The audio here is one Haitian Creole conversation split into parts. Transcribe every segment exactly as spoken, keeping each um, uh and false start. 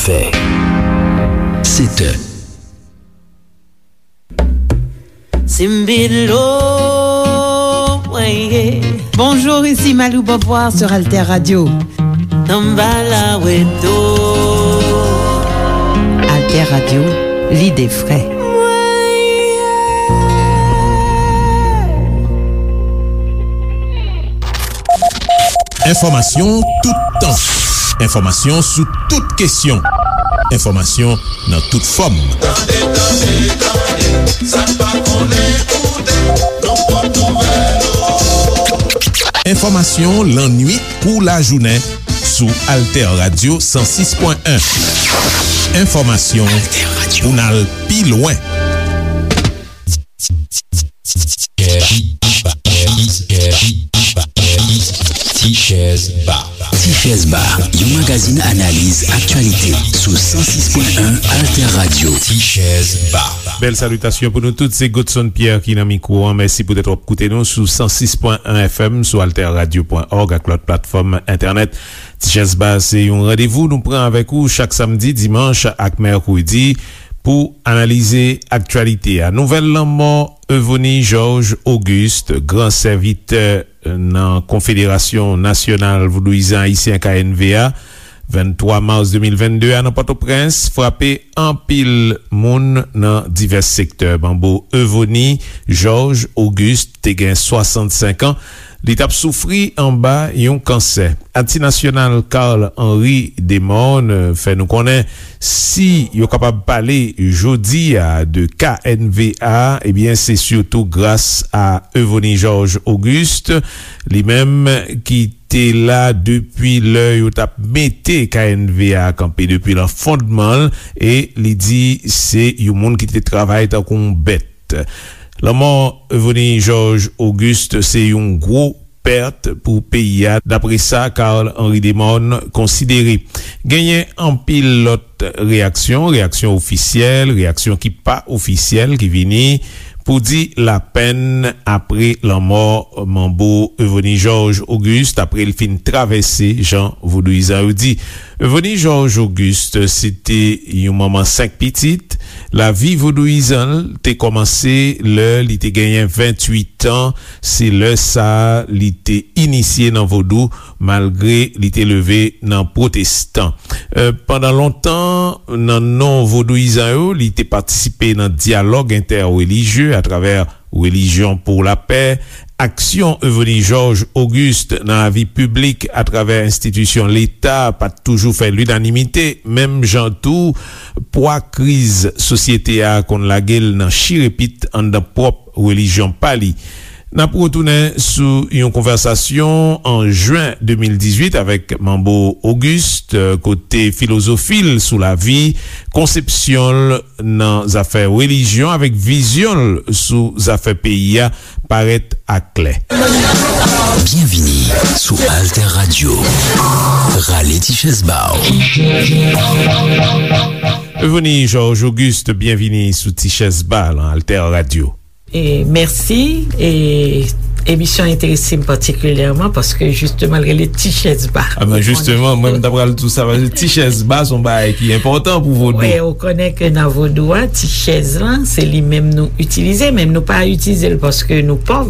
Fè. Sèt è. Simbilo, ouais. Bonjour, ici Malou Beauvoir sur Alter Radio. Samba la weto. Alter Radio, lide fre. Enfòmasyon toutan. Enfòmasyon sou tout kesyon. Enfòmasyon nan tout fòm. Tande, tande, tande, sa n pa konnen koute, nou pot nouvèl yo. Enfòmasyon lannwit kou lajounen sou Alter Radio san sis pwen en. Enfòmasyon pou n al pi lwen. Tichèz Ba. Tichèz Ba, yon magazin analiz aktyalite sou san sis pwen en Alter Radio. Tichèz Ba. Bèl salitasyon pou nou tout, se Godson Pierre ki nan mikwo an. Mèsi poutèt w ap koute nou sou san sis pwen en F M, sou alter radio pwen org ak lòt platfòm entènèt. Tichèz Ba se yon randevou nou pran avèk ou chak samdi, dimanch ak mèkredi pou analize aktyalite a. Nouvèl lanmò Euvonie Georges Auguste, gran sèvitè nan Konfederasyon Nasyonal Vodouyizan Ayisyen, K N V A, venntwa mas de mil vennde a nan Pòtoprens, frape anpil moun nan divès sektè. Manbo Euvonie Georges Auguste te gen swasannsenk an. Li t ap soufri anba yon kansè. Atis nasyonal Carl Henry Desmornes fè nou konnen si yo kapab pale jodi a de K N V A, ebyen, se sitou gras a Euvonie Georges Auguste, li menm ki te la depi lè yo t ap mete K N V A kanpe, depi nan fondman l, e li di se yon moun ki te travay tankou yon bèt. Lanmò Euvonie Georges Auguste se yon gwo pèt pou peyi a, dapre sa Carl Henry Desmornes konsidere. Genyen anpil lòt reyaksyon, reyaksyon ofisyèl, reyaksyon ki pa ofisyèl ki vini pou di lapèn apre lanmò manbo Euvonie Georges Auguste, apre l fin travèse, jan vodouyizan yo di. Euvonie Georges Auguste se te yon manman senk pitit. Lavi vodouyizan l te kòmanse lè li te genyen venntuit an. Se lè sa a li te inisye nan vodou, malgre li te leve nan pwotestan. E, pandan lontan, nan non vodouyizan yo, li te patisipe nan dyalòg entèrelijye atravè Relijyon pou Lapè. Aksyon Euvonie Georges Auguste nan lavi piblik atravè enstitisyon Leta pa t toujou fè linanimite, menm jan tou pwa kriz sosyete a konn lage l nan chirepit anndan pwòp relijyon pa li. N ap retounen sou yon konvèsasyon an jen de mil dizuit avèk Manbo Auguste, kote filozofi l sou lavi, konsepsyon l nan zafè relijyon avèk vizyon l sou zafè peyi a parèt aklè. Byenvini sou Alter Radio. Rale ti chèz ba w. Euvonie Georges Auguste, byenvini sou Ti Chèz Ba nan Alter Radio. E, mèsi. E, emisyon an enterese m patikilyèman paske, jisteman, l rele Ti Chèz Ba. A ben, jisteman, mwen, m ta pral di w sa, paske Ti Chèz Ba se yon bagay ki enpòtan pou vodou. Wi, ou konnen ke nan vodou a, ti chèz lan, se li menm nou itilize, men nou pa itilize l paske nou pòv,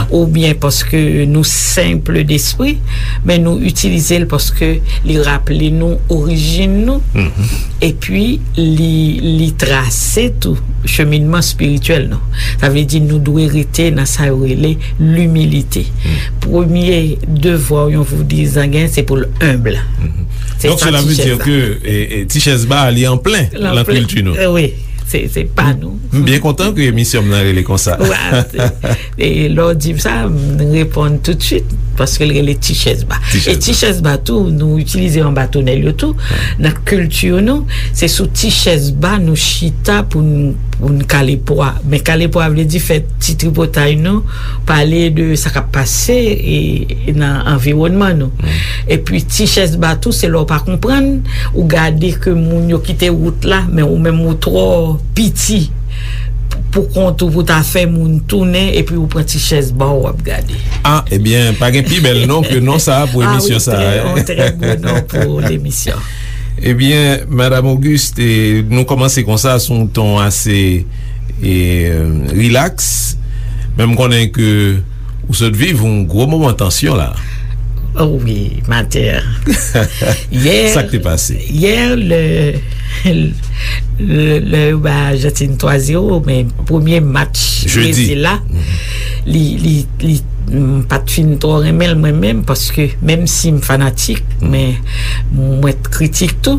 oubyen paske nou senp despri, men nou itilize l paske li raple nou orijin nou, epi li, li trase tou cheminman espirityèl nou. Sa vle di nou dwe rete nan sa yo rele limilite. Premye devwa yon vodouyizan gen, se pou l enb. Se sa Ti Chèz Ba. Donk, cela veut dire que, e, e, Ti Chèz Ba, li an plen nan kilti nou. Wi, se, se pa nou. M byen kontan ke emisyon m nan rele konsa. Wi, se, e lè w di m sa, m reponn toutswit, paske l rele Ti Chèz Ba. E Ti Chèz Ba tou, nou itilize anba tonèl yo tou. Nan kilti nou, se sou ti chèz ba nou chita pou n, pou n kale pwa. Men kale pwa vle di fè ti tripotay nou, pale de sa k ap pase, e, nan anviwònman nou. Epi ti chèz ba tou, se lè w pa konprann, ou gade ke moun yo kite wout la, men ou menm ou twò piti pou kont ou pou ta fè moun tounen, epi ou pran ti chèz ba w, w ap gade. A, ebyen, pa gen pi bèl non ke non sa a pou emisyon sa a. A wi, trè, yon trè bon non pou lemisyon. Ebyen, Madam Auguste, e, nou kòmanse konsa sou yon ton ase, e, rilaks, men m konnen ke ou sot viv yon gwo moman tansyon la. Oh wi, Matè. Yè, sa k te pase? Yè, lè, lè, lè yo bay Ajantin twa zewo, men premye match Brezil la, li, li, li, m pa t fin twò renmen l mwen menm, paske menm si m fanatik, men mwen t kritik tou.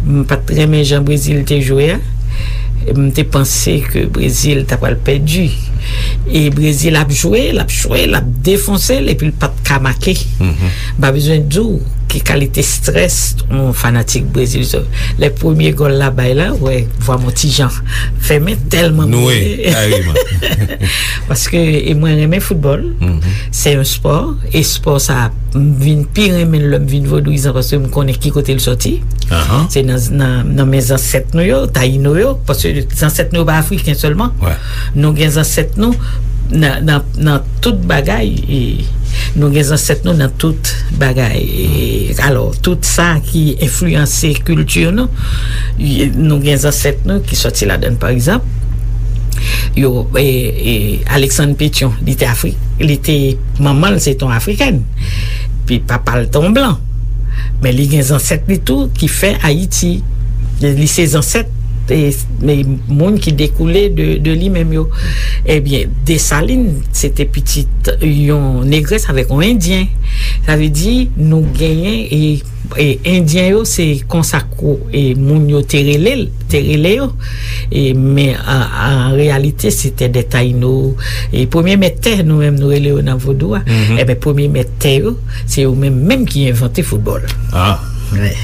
M pa t renmen jan Brezil te jwe a. M te panse ke Brezil ta pral pèdi. E Brezil ap jwe, l ap jwe, l ap defonse l, epi l pa t ka make. M pa bezwen di w ki kalite strès yon fanatik Brezil. Lè premye gòl la bay la, wè, vwa m yon ti jan fèmen tèlman m rele. Paske, e mwen renmen foutbòl. Se yon spò, e spò sa, m vin pi renmen l lè m vin vodouyizan, paske m konnen ki kote l sòti. Se nan, nan, nan men zansèt nou yo, Tayino yo, paske zansèt nou yo pa afriken sèlman. Nou gen zansèt nou nan, nan, nan tout bagay, e nou gen zansèt nou nan tout bagay. E, alò, tout sa ki enfliyanse kilti nou, e nou gen zansèt nou ki sòti ladan l. Pa egzanp, yo, e, e, Alexandre Pétion, li te Afri-, li te, manman l se te yon afrikèn, pi papa l te yon blan. Men li gen zansèt li tou ki fè Ayiti. Li se zansèt, e, e, moun ki dekoule de, de li menm yo. Ebyen, Desalin, se te pitit yon negrès avèk yon endyen. Sa vle di, nou genyen, e, e, endyen yo, se konsa kou, e, moun yo te rele l, te rele yo. E, men, an, an reyalite, se te de Tayino. E, premye mèt tè, nou menm, nou rele yo nan vodou a. Ebyen, premye mèt tè yo, se yo menm, menm ki envante foutbòl.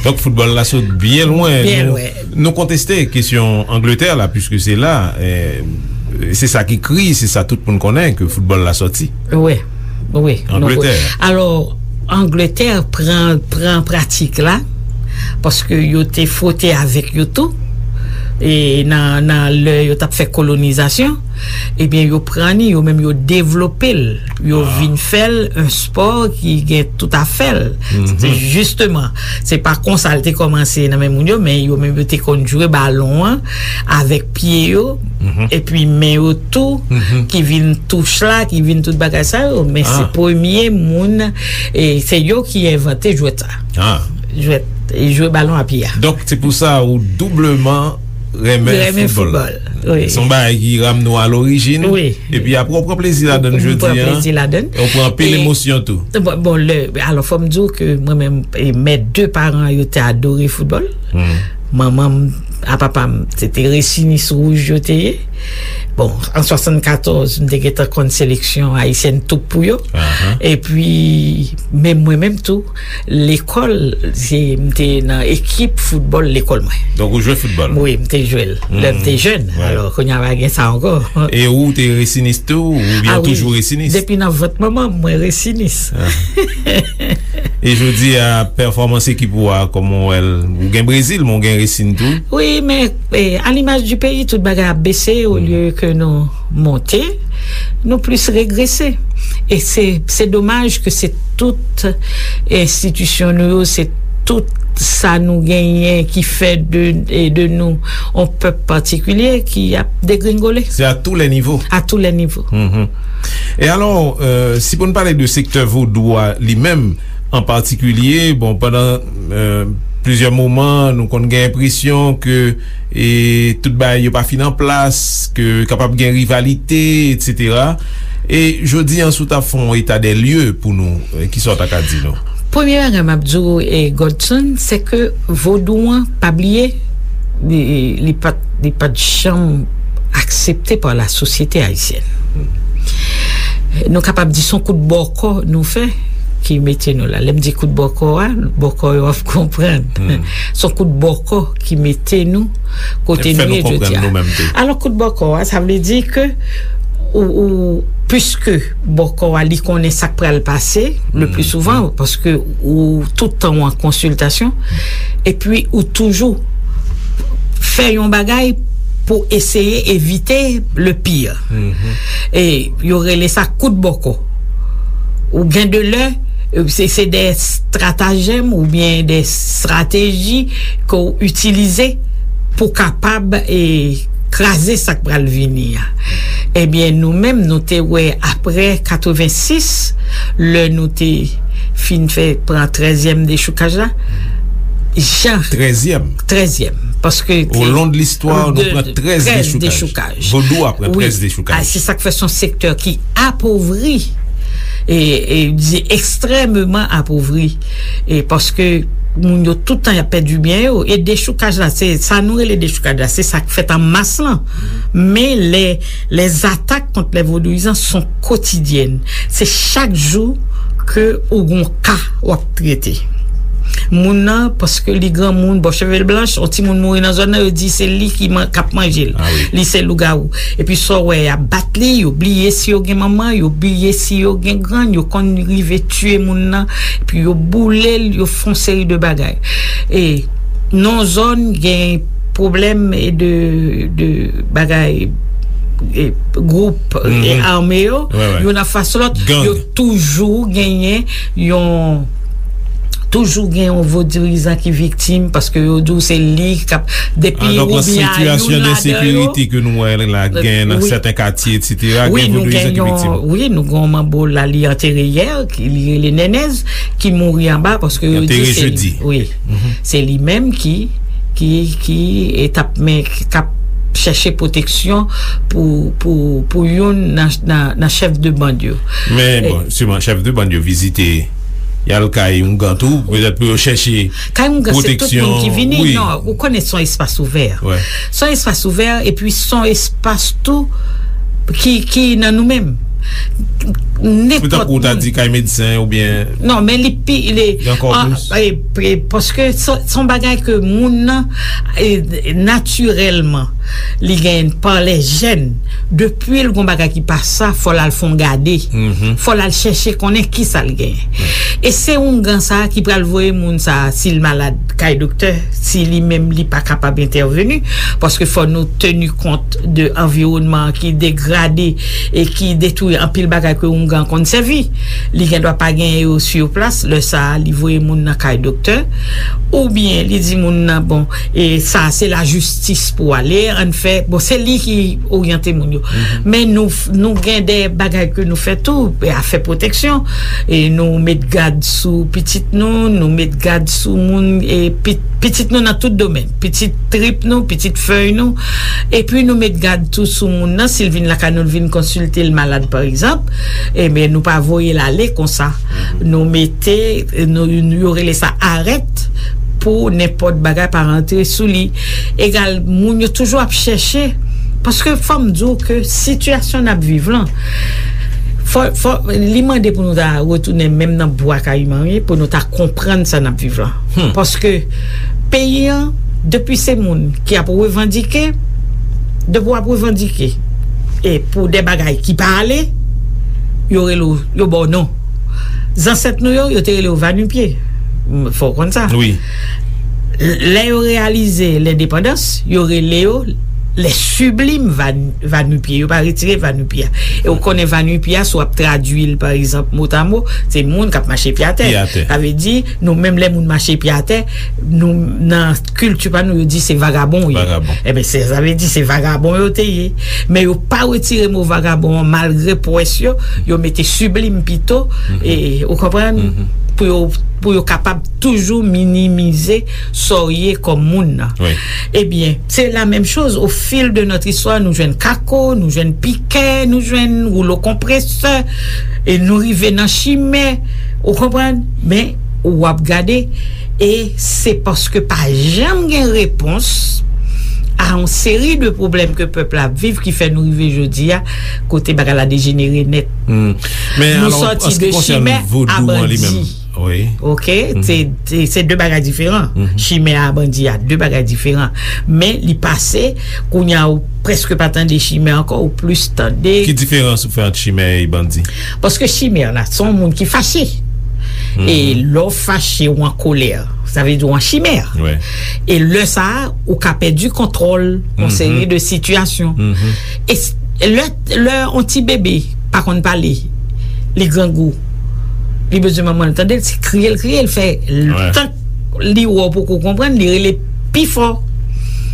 Donk, foutbòl la sot byen lwen. Nou, nou konteste kesyon Angletè la, piske se la, e, se sa ki kri, se sa tout moun konnen, ke foutbòl la sòti. Wi, wi. Angletè. Alò, Angletè pran, pran pratik la, paske yo te fwote avèk yo tou, e nan, nan lè yo t ap fè kolonizasyon, ebyen, yo pran li, yo menm yo devlope l, yo vin fè l yon spò ki gen tout afè l. Se jisteman, se pa konsa l te kòmanse nan men moun yo, men yo menm yo te konn jwe balon an avèk pye yo, epi men yo tou, ki vin touch la, ki vin tout bagay sa yo. Men se premye moun, e se yo ki envante jwèt sa. Jwèt, e jwe balon a pye a. Donk, se pou sa ou doubleman renmen foutbòl. Se yon bagay ki ramne w a lorijin. Epi apre, w pran plezi ladan l jodi a. Ou pran anpil emosyon tou. Bon, bon, lè, alò, fò m di w ke mwen menm, e, mè de paran yo te adore foutbòl. Manman m a papa m, se te Resinis Wouj yo te ye. Bon, an swasannkatòz, m te gentan konn seleksyon ayisyèn tou pou yo. Epi, men mwen menm tou, lekòl, se, m te nan ekip foutbòl lekòl mwen. Donk, ou jwe foutbòl? Wi, m te jwe l. Lè m te jèn. Alò, kounye a pa gen sa ankò. E ou te Resinis tou, oubyen ou toujou Resinis? Depi nan vant manman m, mwen Resinis. E jodi a, pèfòmans ekip ou a, kòman w wè l? Ou gen Brezil, men w gen Resin tou. Wi, men, e, à l'image du pays, tout bagay ap bese, olye ke nou monte, nou plis regrese. E se, se domaj ke se tout enstitisyon nou yo, se tout sa nou genyen ki fè de, e de nou yon pèp patikilye ki ap degringole. C'est à tous les niveaux. À tous les niveaux. E alò, e, si pou n pale de sektè vodou a li menm, an patikilye, bon, pandan, e, plizyè moman, nou konn gen enpresyon ke, e, tout bagay yo pa fin an plas, ke kapab gen rivalite, etsetera. E jodi a, si w ta fè yon eta dè lye pou nou, e, kisa w ta ka di nou? Premye bagay m ap di w, e, Godson, se ke vodou an, pa bliye, li, li pa t, li pa t janm aksepte pa la sosyete ayisyèn. Nou kapab di se yon kout bòkò nou fè ki mete nou la. Lè m di kout bòkò a, bòkò yo ap konprann. Se yon kout bòkò ki mete nou kote nou ye jodi a. Alò, kout bòkò a, sa vle di ke ou, ou, piske bòkò a, li konnen sa k pral pase, le pli souvan, paske ou tout tan ou an konsiltasyon, epi ou toujou fè yon bagay pou eseye evite le pire. E yo rele sa kout bòkò. Ou gen de lè, Se, se de estratagèm oubyen de estrateji ke w itilize pou kapab, e, kraze sa k pral vini a. Ebyen, nou menm, nou te wè apre katrevensis, lè nou te fin fè, pran trèzyèm dechoukaj la, jan Trèzyèm. Trèzyèm. Paske Olon de listwa, nou pran trèz dechoukaj. Vodou a pran trèz dechoukaj. A, se sa k fè se yon sektè ki apovri, e, e, di ekstrèmeman apovri. E paske moun yo tout tan y ap pèdi byen yo. E dechoukaj la, se sa nou rele dechoukaj la, se sa k fèt an mas lan. Men lè, lè zatak kont lè vodouyizan son kotidyèn. Se chak jou ke ou gon ka w ap trete. Moun nan, paske li granmoun, bò cheve l blanch, yon timoun mouri nan zòn nan, yo di se li ki man-, k ap manje l. Li se lougawou. Epi sa w wè, y ap bat li, yo bliye si yo gen manman, yo bliye si yo gen grann, yo konn rive tiye moun nan, epi yo boule l, yo fè yon seri de bagay. E nan zòn gen pwoblèm de, de bagay, e, gwoup, e, ame yo, youn anfas lòt, yo toujou genyen yon, toujou gen yon vodourizan ki viktim, paske yo di w se li k ap, depi ou byen a youn ladan yo. An, donk, nan sitiyasyon de ensekirite ke nou wè la, gen nan sèten katye, etsetera, gen vodourizan ki viktim. Wi, nou gen yon manbo la, li antere yè, ki li rele Nènèz, ki mouri anba, paske yo di se li. Wi. Se li menm ki, ki, ki, e, t ap, men, k ap chèche pwoteksyon pou, pou, pou youn nan, nan, nan chèf de bann yo. Men, bon, siman, chèf de bann yo vizite, y al kay oungan tou, petèt pou yo chèche pwoteksyon. Kay oungan, se tout moun ki vini. Non, ou konnen se yon espas ouvè. Se yon espas ouvè, epi se yon espas tou ki, ki nan nou menm. Nenpòt moun. Se tankou w ta di kay medsen oubyen. Non, men li pi, li, e, e, paske se, se yon bagay ke moun nan, e, natirèlman, li gen pa lè jèn. Depi l gon bagay ki pa sa, fò l al fè yon gade. Fò l al chèche konnen kisa l genyen. E se oungan sa a ki pral voye moun sa a, si l malad, kay doktè, si li menm li pa kapab entèveni, paske fò nou teni kont de anviwònman an ki degrade e ki detwi anpil bagay ke oungan konn sèvi. Li gendwa pa genyen yo sou plas, lè sa a, li voye moun nan kay doktè, oubyen li di moun nan, bon, e sa a se lajistis pou ale, ann fè, bon, se li ki oryante moun yo. Men nou, nou gen de bagay ke nou fè tou, e afè pwoteksyon, e nou met gad sou pitit nou, nou met gad sou moun, e pi-, pitit nou nan tout domèn, pitit trip nou, pitit fèy nou, epi nou met gad tou sou moun nan, si l vin lakay nou, l vin konsilte l malad, pa egzanp, ebyen, nou pa voye l ale konsa. Nou mete, nou, yo rele sa arèt pou nenpòt bagay pa rantre sou li. Egal, moun yo toujou ap chèche, paske fò m di w ke sitiyasyon n ap viv lan, fò, fò, li mande pou nou ta retounen menm nan bwa kayiman, wi, pou nou ta konprann sa n ap viv lan. Paske peyi an, depi se moun ki ap revandike, depi w ap revandike, e pou de bagay ki pa ale, yo rele w, yo ba w non. Zansèt nou yo, yo te rele yo Vanipye. M, fò w konn sa. Wi. Lè yo reyalize lendepandans, yo rele yo les sublimes Van-, Vanipye. Yo pa retire Vanipye a. E ou konnen Vanipye a, si w ap tradui l, pa egzanp, motamo, se moun k ap mache pye atè. Pye atè. Sa vle di, nou menm lè moun mache pye atè, nou, nan kilti pa nou, yo di se vagabon yo ye. Vagabon. Ebyen, se, sa vle di se vagabon yo te ye. Men yo pa retire mo vagabon an, malgre pwès yo, yo mete siblim pito, e, ou konprann? Pou yo, pou yo kapab toujou minimize sa w ye kòm moun nan. Wi. Ebyen, se la menm choz, au fil de notre histoire, nou jwenn kako, nou jwenn pikè, nou jwenn woulo konpresè, e nou rive nan chimè, ou konprann? Men, w ap gade, e se paske pa janm gen repons a yon seri de pwoblèm ke pèp la ap viv ki fè nou rive jodi a, kote bagay la dejenere nèt. Hmm. Men alò, an se ki konsène vodou an li menm, wi. Ok? Se, se, se de bagay diferan. Chimè a bandi a, de bagay diferan. Men li pase, kounye a ou prèske pa tande chimè ankò, ou plis tande. Ki diferans ou fè ant chimè e bandi? Paske chimè la, se yon moun ki fache. E lè w fache, ou an kolè, sa vle di ou an chimè. Wi. E lè sa a, ou ka pèdi kontwòl yon seri de sitiyasyon. E s-, lè, lè yon ti bebe pa konn pale, li grangou. Li bezwen manman l tande l, se kriye l kriye, l fè tan li wè w poko konprann, li rele pi fò.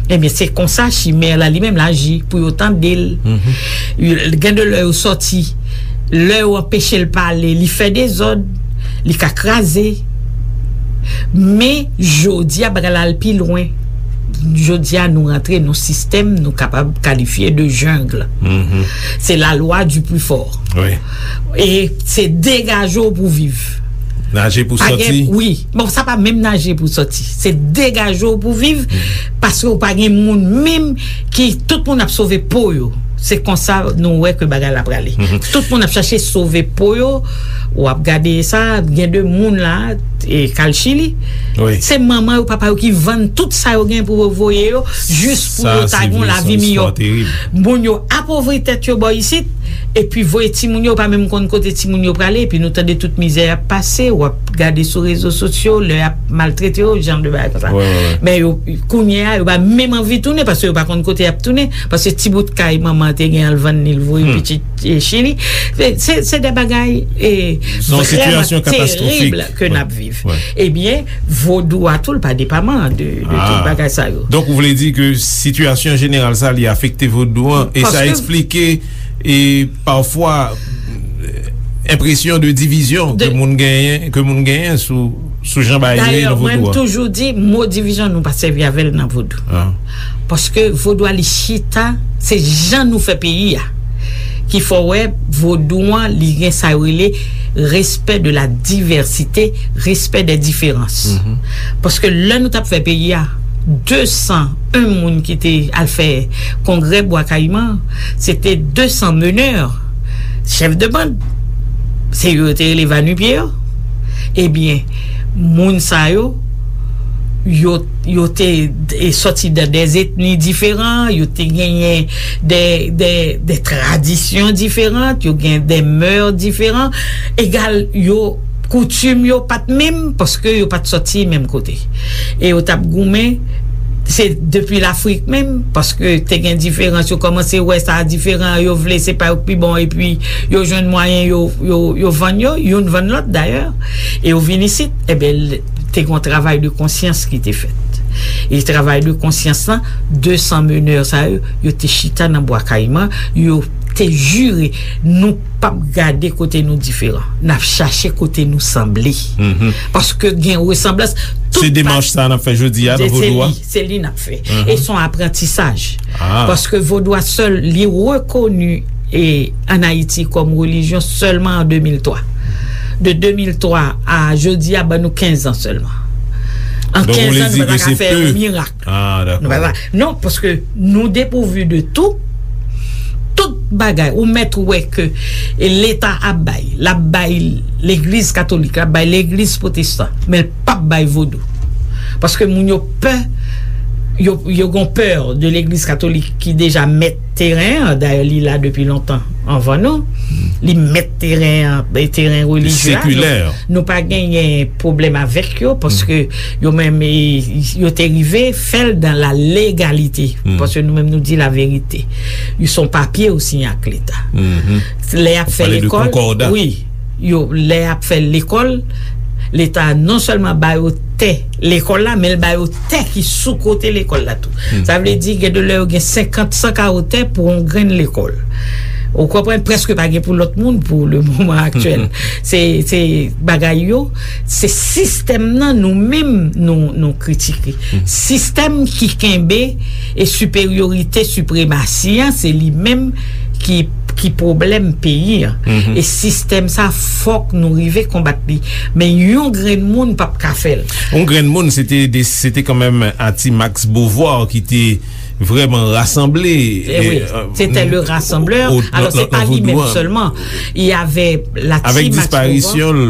Ebyen, se konsa chimè la li menm l aji pou yo tande l. Gen de lè yo sòti, lè yo anpeche l pale, li fè dezòd, li ka kraze. Men, jodi a, bagay la al pi lwen. Jodi a, nou rantre nan sistèm nou kapab kalifye de jungle. Se la lwa du plus fort. E se degaje w pou viv. Naje pou sòti. Wi. Bon, sa pa menm naje pou sòti. Se degaje w pou viv, paske w pa gen moun menm ki, tout moun ap sove po yo. Se konsa nou wè ke bagay la prale. Tout moun ap chache sove po yo. W ap gade sa, gen de moun la, e, k al Chili. Se manman yo, papa yo ki vann tout sa yo gen pou yo voye yo, jis pou yo ta gen yon lavi miyò. Moun yo apovri tèt yo bò isit, epi voye timoun yo, pa menm konn kote timoun yo prale, epi nou tande tout mizè y ap pase, w ap gade sou rezo sosyo, lè y ap maltrete yo, jan de bagay konsa. Men yo, kounye a, yo pa menm anvi tounen, paske yo pa konn kote y ap tounen, paske ti bout kay manman te gen an l vann li, l voye pitit, e, Chili. Se, se, se de bagay, e, vrèman terib ke n ap viv. Ebyen, vodou a tou, l pa depaman de, de tout bagay sa yo. Donk, ou vle di ke sitiyasyon jeneral sa, li afekte vodou an, e sa eksplike, e pafwa, enpresyon de divizyon ke moun genyen, ke moun genyen sou, sou jan bagay yo ye nan vodou a. Dayè, mwen, m toujou di, mo divizyon, nou pa sèvi avè l nan vodou. Paske vodou a, li chita, se jan nou fè peyi a ki fè w wè vodou an, li gen sa yo rele respè de la divèsite, respè dè diferans. Paske lè nou t ap fè peyi a, de san en moun ki te al fè kongrè Bwa Kayiman, se te de san menè, chèf de bann. Se yo yo te rele vanipye yo. Ebyen, moun sa yo, yo, yo te, e, sòti de, de etni diferan, yo te genyen de, de, de tradisyon diferan, yo gen de mè diferan. Egal, yo, koutim yo pa t menm, paske yo pa t sòti menm kote. E yo t ap goumen, se depi Lafrik menm, paske te gen diferans, yo kòmanse wè sa diferan, yo vle se pa yo k pi bon, epi yo jwenn mwayen, yo, yo, yo vann yo, youn vann lòt dayè, e yo vin isit, ebyen, l-, te gen yon travay de konsyans ki te fèt. E travay de konsyans lan, de san menè sa yo, yo te chita nan Bwa Kayiman, yo te jire, nou p ap gade kote nou diferan. N ap chache kote nou sanble. Paske gen resanblans. Se demach sa n ap fè jodi a nan vodou a? Se li, se li n ap fè. E se yon aprantisaj. Paske vodou a sèl, li rekoni, e, ann Ayiti kòm relijyon sèlman an de mil twa. De de mil twa a jodi a, ban nou kenz an sèlman. An kenz an, nou pa ta ka fè yon mirak. Ah, dakò. Nou pa ta, non, paske nou depouvi de tou. Tout bagay, ou mèt wè ke Leta ap bay, l ap bay legliz katolik, l ap bay legliz pwotestan, men l p ap bay vodou. Paske moun yo pè, yo, yo gon pè de legliz katolik ki deja mèt teren an, dayè li la depi lontan anvan nou. Li mèt teren an, teren relijye a. Nou, nou pa genyen pwoblèm avèk yo, paske yo menm, e, yo te rive fè l dans la légalité. Paske nou menm nou di laverite. Ils sont papier aussi ak Leta. Lè y ap fè lekòl, wi, yo, lè y ap fè lekòl, Leta non sèlman ba yo tè lekòl la, men l ba yo tè ki sou kote lekòl la tou. Sa vle di, gen de lè yo gen senkant, san kawo tè pou yon grenn lekòl. Ou konprann, prèske pa gen pou lòt moun pou le moman aktyèl. Se, se bagay yo, se sistèm nan nou menm nou, nou kritike. Sistèm ki kenbe e siperyorite, sipremasi an, se li menm ki, ki pwoblèm peyi an. E sistèm sa, fòk nou rive konbat li. Men yon grenn moun p ap ka fè l. Yon grenn moun, se te de, se te kanmenm Ati Max Beauvoir ki te vrèman rasanble. Eh oui, c'était le rassembleur. Alors, c'est pas lui-même seulement. Il y avait la team Max Beauvoir. Avèk disparisyon l,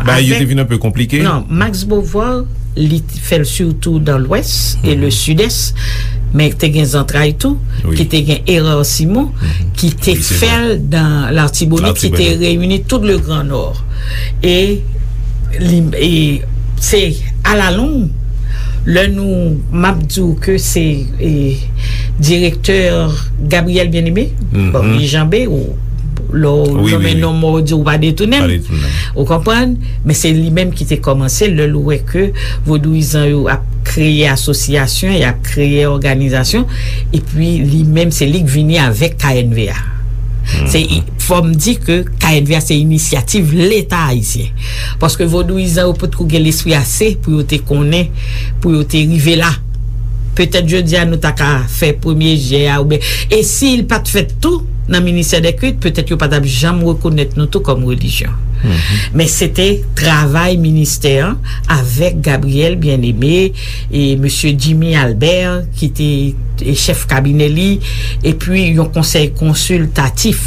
bagay yo te vin enpe konplike. Non, Max Beauvoir, li t-, fè l sitou nan Lwès e le Sidès, men te gen zantray tou, ki te gen Hérard Simon, ki te fè l nan Latibonit, ki te reyini tout le Grand Nord. E li, e se alalong, lè nou, m ap di w ke se, e, direktè Gabriel Bien-Aimé, bon, li janbe, ou, Lè w nonmen non mò, w di w pa detounen m. Ou konprann? Men se li menm ki te kòmanse lè l wè ke vodouyizan yo ap kreye asosyasyon, y ap kreye òganizasyon, epi li menm se li k vini avèk K N V A. Se, fò m di ke K N V A se inisyativ Leta ayisyen. Paske vodouyizan yo potko gen lespri ase pou yo te konnen, pou yo te rive la. Petèt jodi a nou ta ka fè premye jè a oubyen, e si l pa t fèt tou nan ministè dè kilt, petèt yo pa t ap janm rekonèt nou tou kòm relijyon. Men se te travay ministè an avèk Gabriel Bien-Aimé e mesye Jimmy Albert ki te e chèf kabinè li, epi yon konsèy konsiltatif.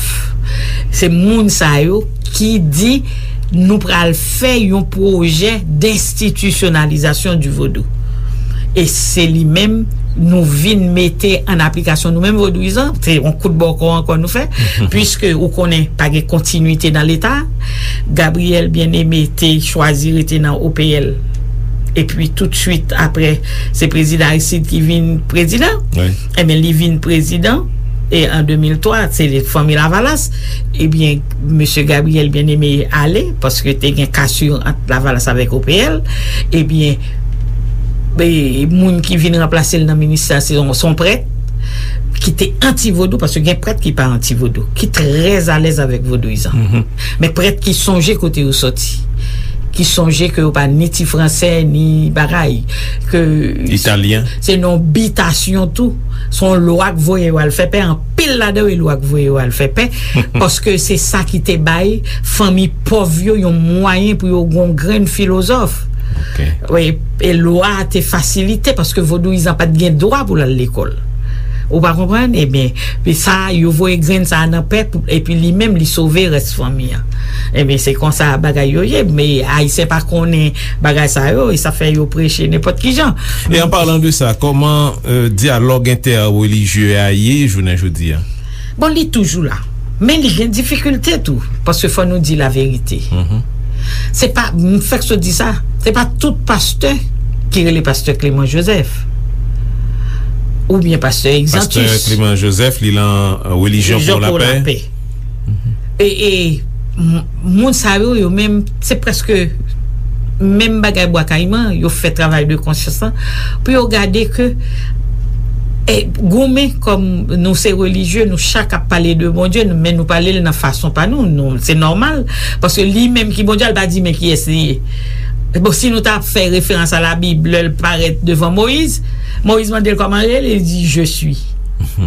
Se moun sa yo ki di nou pral fè yon pwojè denstitisyonalizasyon di vodou. E se li menm nou vin mete an aplikasyon nou menm vodouyizan, se yon kout bòkò ankò nou fè, piske ou konnen pa gen kontinwite nan Leta. Gabriel Bien-Aimé te chwazi rete nan O P L. Epi toutswit apre, se prezidan Aristide ki vin prezidan. Ebyen, li vin prezidan, e an de mil twa, se fanmi Lavalas. Ebyen, mesye Gabriel Bien-Aimé ale, paske te gen kasir ant Lavalas avèk O P L. Ebyen, e, moun ki vin ranplase l nan ministè a, se yon, se yon prèt ki te anti-vodou, paske gen prèt ki pa anti-vodou, ki trè alèz avèk vodouyizan. Men prèt ki sonje kote yo sòti, ki sonje ke yo pa ni ti fransè, ni bagay, ke se yon bitasyon tou, se yon lwa k voye yo al fè pè, anpil ladan yo e lwa k voye yo al fè pè, paske se sa ki te bay fanmi pòv yo yon mwayen pou yo gon grenn filozòf. Wi, e lwa a te fasilite paske vodouyizan pa t gen dwa pou l al lekòl. Ou pa konprann? Ebyen, pi sa, yo voye grenn sa a nan pè, pou, epi li menm, li sove rès fanmi an. Ebyen, se konsa bagay yo ye, men Ayisyen pa konnen bagay sa yo, e sa fè yo preche nenpòt ki jan. E an palan de sa, kòman, euh, dyalòg entèrelijye a ye jounen jodi a? Bon, li toujou la. Men li gen difikilte tou, paske fò nou di laverite. Se pa, m fèk sot di sa, se pa tout pastè ki rele pastè Clément Joseph. Oubyen pastè Exantus. Pastè Clément Joseph, li lan, euh, Relijyon pou Lapè. E, e, m-, moun sa yo, yo menm, se prèske menm bagay Bwa Kayiman, yo fè travay de konsyans lan, pou yo gade ke, e, goumen kòm nou se relijye, nou chak ap pale de Bondye, nou, men nou pale l nan fason pa nou, nou, se nòmal, paske li menm ki Bondye a, l pa di men kiyès li ye. Bon, si nou ta fè referans a Labib, lè l parèt devan Moyiz, Moyiz mande l kòman l rele, li di, "Je suis."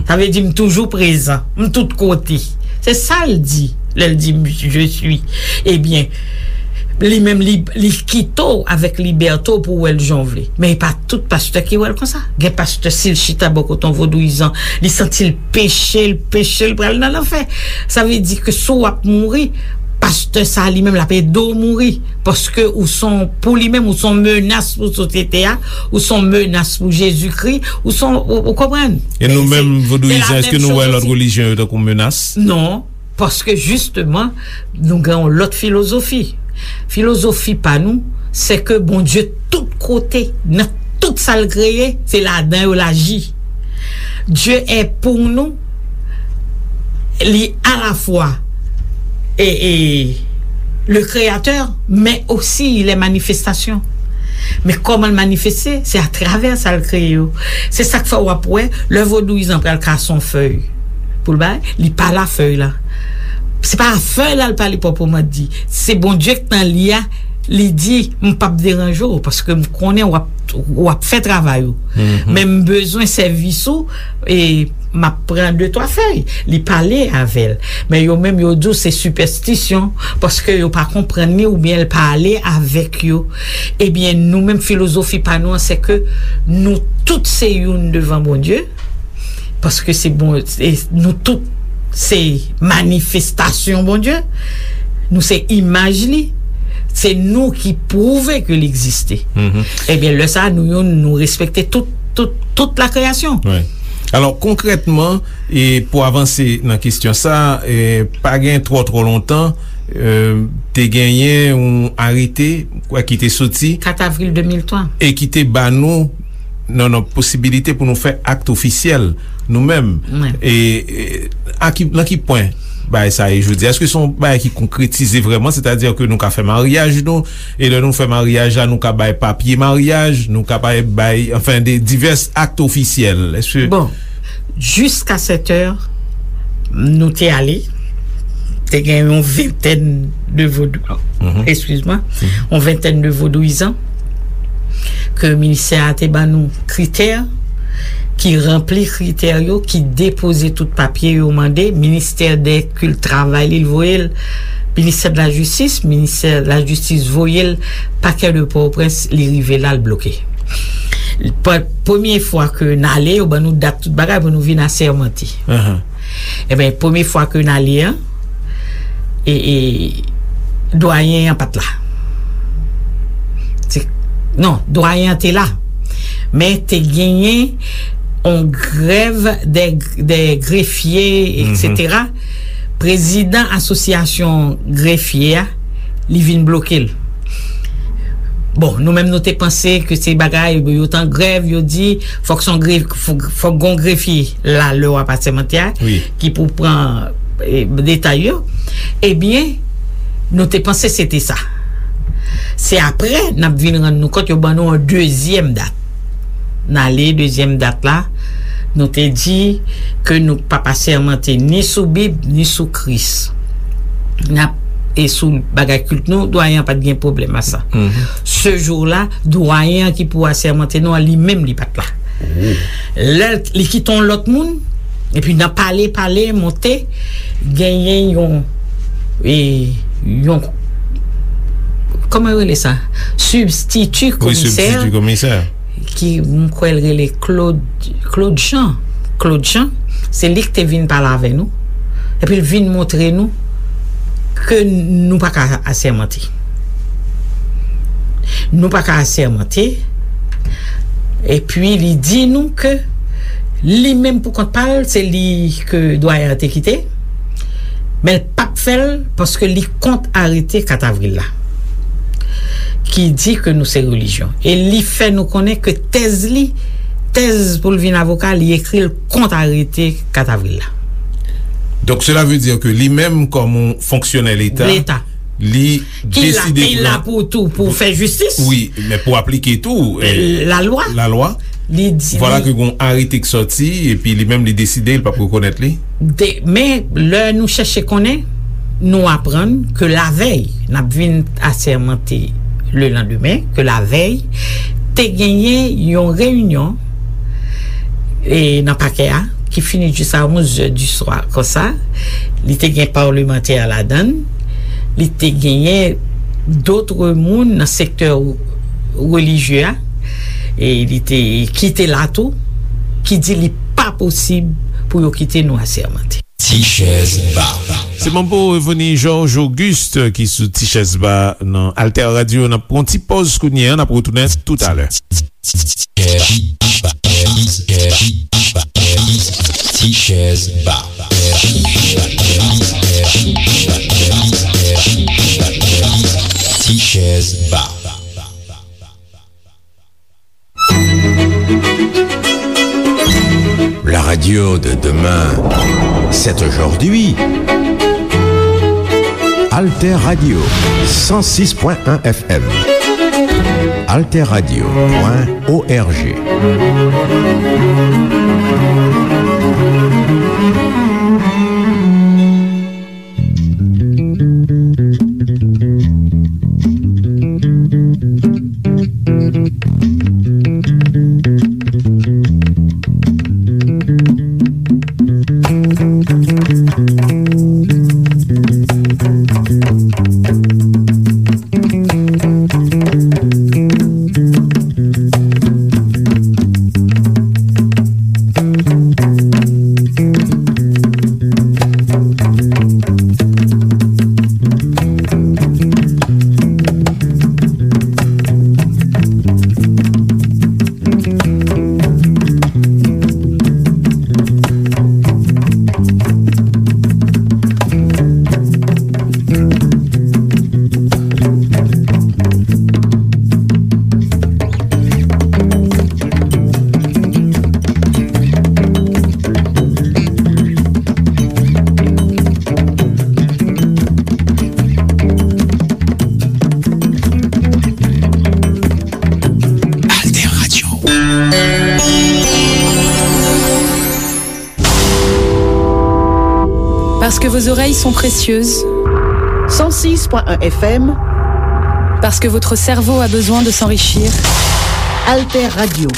Sa vle di, "M toujou prezan, m tout kote." Se sa l di, lè l di, "Je suis." Ebyen, li menm, li, li kite w avèk libète w pou w wè l jan w vle. Men e pa tout pastè ki wè l konsa. Gen pastè, si l chita bò kote yon vodouyizan, li santi l peche, l peche, l pral nan lanfè. Sa vle di ke si w ap mouri, pastè sa a li menm l ap ede w mouri. Paske ou se yon, pou li menm, ou se yon menas pou sosyete a, ou se yon menas pou Jezikri, ou se yon, ou, ou konprann? E nou menm, vodouyizan, èske nou wè lòt relijyon yo tankou menas? Non, paske jisteman, nou gen yon lòt filozofi. Filozofi pa nou, se ke Bondye tout kote, nan tout sa l kreye, se ladan yo l aji. Dieu est pour nous, li alafwa e, e, le créateur, men osi il est manifestation. Men kòman l manifeste? Se atravè sa l kreye yo. Se sa k fè w ap wè, lè vodouyizan pral kase yon fèy pou l bay, li pale a fèy la. Se pa a fèy la l pale pwòpman di. Se Bondye k nan li a, li di, "M p ap deranje w, paske m konnen w ap, w ap fè travay ou. Men m bezwen sèvis ou, e m ap pran de twa fèy." Li pale avè l. Men yo menm, yo di w se sipèstisyon, paske yo pa konprann li oubyen l pale avèk yo. Ebyen, nou menm, filozofi pa nou an, se ke nou tout se youn devan Bondye, paske se bon, e nou tout se manifestasyon Bondye, nou se imaj li, se nou ki pwouve ke l egziste. Ebyen, lè sa a, nou youn, nou respekte tout, tout, tout la kreyasyon. Alò, konkrètman, e pou avanse nan kesyon sa, e pa gen twò, twò lontan, e, te genyen yon arete, kwè, ki te soti kat avril de mil twa, e ki te ba nou, non, non, posibilite pou nou fè akt ofisyèl nou menm. E, e, a ki, nan ki pwen bagay sa ye jodi? Èske se yon bagay ki konkretize vrèman, sètadi ke nou ka fè maryaj nou, e lè nou fè maryaj la, nou ka bay papye maryaj, nou ka bay, bay, anfen, de divès akt ofisyèl? Èske Bon, jiska sèt è, nou te ale, te gen yon ventèn de vodou, eskiz mwen, yon ventèn de vodouyizan, ke ministè a te ban nou kritè, ki ranpli kritè yo, ki depoze tout papye yo mande, ministè dè kilt travay li, l voye l, ministè de la jistis, ministè de la jistis voye l pakè de Pòtoprens, li rive la, l bloke. Premye fwa ke n ale, yo ban nou dat tout bagay pou nou vin asèmante. Enben, premye fwa ke n ale an, e, e, dwayen an pa t la. Se, non, dwayen an te la. Men te genyen yon grèv dè, dè grefye, etsetera. Prezidan asosyasyon grefye a, li vin bloke l. Bon, nou menm nou te panse ke se bagay, yo t an grèv, yo di, fòk se yon gref-, fòk, fòk gon grefye la, lè w ap asèmante a, ki pou pran, e, detay yo. Ebyen, nou te panse se te sa. Se apre, n ap vin rann nou kont, yo ban nou yon dezyèm dat. N ale, dezyèm dat la, nou te di ke nou p ap asèmante ni sou Bib, ni sou Kris. N ap, e sou bagay kilt nou, dwayen an pa t gen pwoblèm a sa. Se jou la, dwayen an ki pou asèmante nou an, li menm li pa t la. Lè l, li kite yon lòt moun, epi nan pale, pale, monte, genyen yon, e, yon, kòman yo rele sa? Sibstiti komisè. Wi, sibstiti komisè. Ki, m kwè l rele Claude, Claude Jean. Claude Jean, se li ki te vin pale avè nou. Epi l vin montre nou ke nou pa ka asèmante. Nou pa ka asèmante. Epi li di nou ke li menm pou kont pa l, se li ke dwayen an te kite. Men l p ap fè l paske li kont arete kat avril la, ki di ke nou se relijyon. E li fè nou konnen ke tèz li, tèz pou l vin avoka, li ekri l kont arete kat avril la. Donk, cela veut dire que li menm, kòm yon fonksyonè Leta, Leta. Li ki la, deside ki pou la pou tou, pou fè jistis. Wi, men pou aplike tou, e, lalwa. Lalwa. Li di, vwala ke gon arete k sòti, epi li menm li deside, li p ap rekonèt li. De, men lè nou chèche konnen, nou aprann ke lavèy, n ap vin asèmante lelandemen, ke lavèy, te genyen yon reyinyon, e, nan pakè a, ki fini jis a onz è di swa, konsa. Li te gen palmantè ladan l, li te genyen dòt moun nan sektè relijye a, e li te, ki te la tou, ki di li pa posib pou yo kite nou asèmante. Ti chèz ba. Se Manbo Reveni Georges Auguste ki sou Ti chèz ba nan Alter Radio. N ap pran yon ti pòz kounye a, n ap retounen toutalè. Ti chèz ba. Ti chèz ba. La radio de demain, c'est aujourd'hui. Alter Radio, cent six point un F M. Alter Radio point O R G. Parce que vos oreilles sont précieuses. Cent six point un F M. Parce que votre cerveau a besoin de s'enrichir. Alter Radio.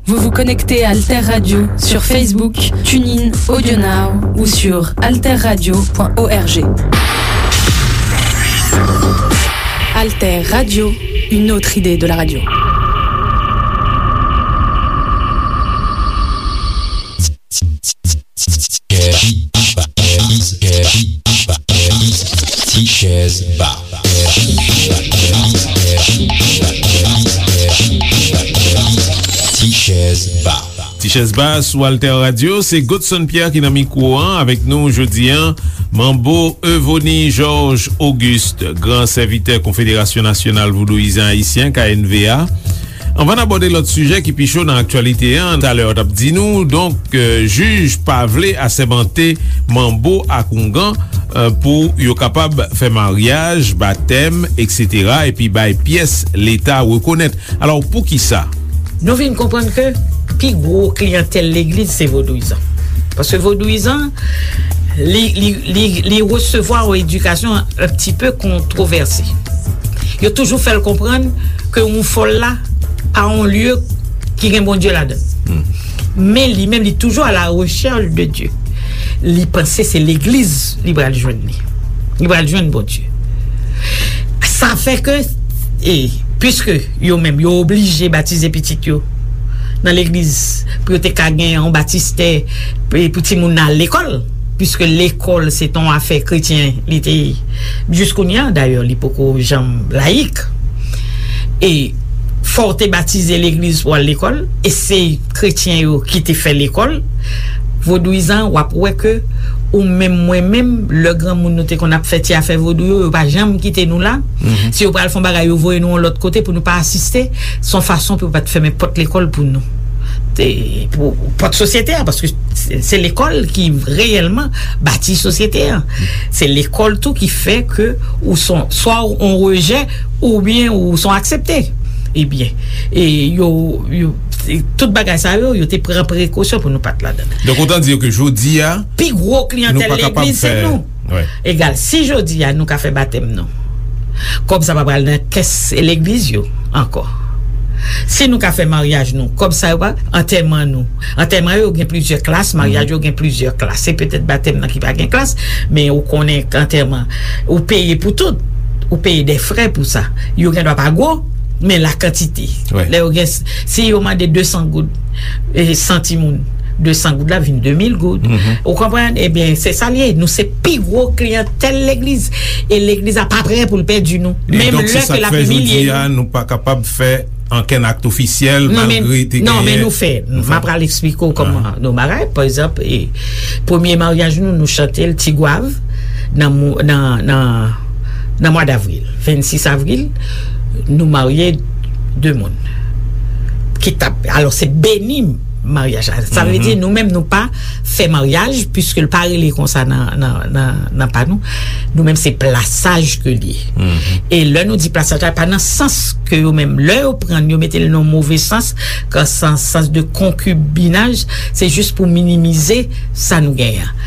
Vous vous connectez à Alter Radio sur Facebook, TuneIn, AudioNow ou sur alter radio point org. Alter Radio, une autre idée de la radio. Ti chèz ba. Ti chèz ba. Ti chèz ba sou Alter Radio, se Godson Pierre ki nan mikwo an avèk nou jodi an. Manbo Evony Georges Auguste, gran sèvitè Konfederasyon Nasyonal Vodouyizan Ayisyen, K N V A. Anvan n abòde lòt sijè ki pi cho nan aktyalite an, talè w t ap di nou, donk, euh, jij pa vle asèmante manbo ak oungan, euh, pou yo kapab fè maryaj, batèm, etsetera, epi bay pyès Leta rekonèt. Alò, poukisa? Nou vin konprann ke pi gwo kliyantèl legliz se vodouyizan. Paske vodouyizan, li, li, li, li resevwa yon edikasyon un petit peu controversée. Yo toujou fè l konprann ke yon fòl la pa yon lye ki gen Bondye ladan l. Men li menm, li toujou à la recherche de Dieu. Li panse se legliz li pral jwenn li. Li pral jwenn Bondye. Sa fè ke, e, piske yo menm, yo oblije batize pitit yo nan legliz pou yo te ka gen yon batistè, pou, pou timoun nan al lekòl, piske lekòl se te yon afè kretyen, li te ye. Jis kounye a, dayè, li poko janm layik. E fò w te batize legliz pou al lekòl, e se kretyen yo ki te fè lekòl. Vodouyizan, w ap wè ke ou menm, mwen menm, lè granmoun nou te konn ap fè ti afè vodou yo, yo pa janm kite nou la. Si yo pral fè yon bagay, yo voye nou yon lòt kote pou nou pa asiste. Se yon fason pou yo pa t fèmen pòt lekòl pou nou. Te, pou pòt sosyete a, paske se, se lekòl ki reyèlman bati sosyete a. Se lekòl tou ki fè ke ou son, swa ou on rejè, oubyen ou son aksepte. Ebyen, e yo, yo, e tout bagay sa yo, yo te pran prekosyon pou nou pa t ladan l. Donk, otan di ke jodi a, pi gwo kliyantèl legliz se nou. Egal, si jodi a nou ka fè batèm nou, kòb sa pa pral nan kès legliz yo ankò. Si nou ka fè maryaj nou, kòb sa yo pa, antèman nou. Antèman yo gen plizyè klas, maryaj yo gen plizyè klas. Se petèt batèm nan ki pa gen klas, men ou konnen k antèman, ou peye pou tout. Ou peye de frè pou sa. Yo gen dwa pa gwo, men la kantite. Lè yo gen, si yo mande de san goud, e, san timoun, de san goud la vin de mil goud. Ou konprann? Ebyen, se sa l ye. Nou se pi gwo kliyantèl legliz. E legliz la pa prè pou l pèdi nou. Menm lè ke l ap imilye nou. E donk, se sa k fè jodi a, nou pa kapab fè ankenn akt ofisyèl, malgre te genyen. Non, men nou fè. M ap pral eksplike w kòman nou bagay. Pa egzanp, e, premye maryaj nou, nou chante l Ti Gwav nan, nan, nan, nan mwa davril. Vennsis avril, nou marye de moun. Ki t ap, alò, se beni maryaj la. Sa vle di, nou menm, nou pa fè maryaj, piske l pa rele konsa nan, nan, nan, nan pa nou. Nou menm, se plasaj ke l ye. E lè nou di plasaj la, pa nan sans ke yo menm, lè yo pran l, yo mete l nan move sans, kan sans, sans de konkibinaj, se jis pou minimize sa nou genyen an.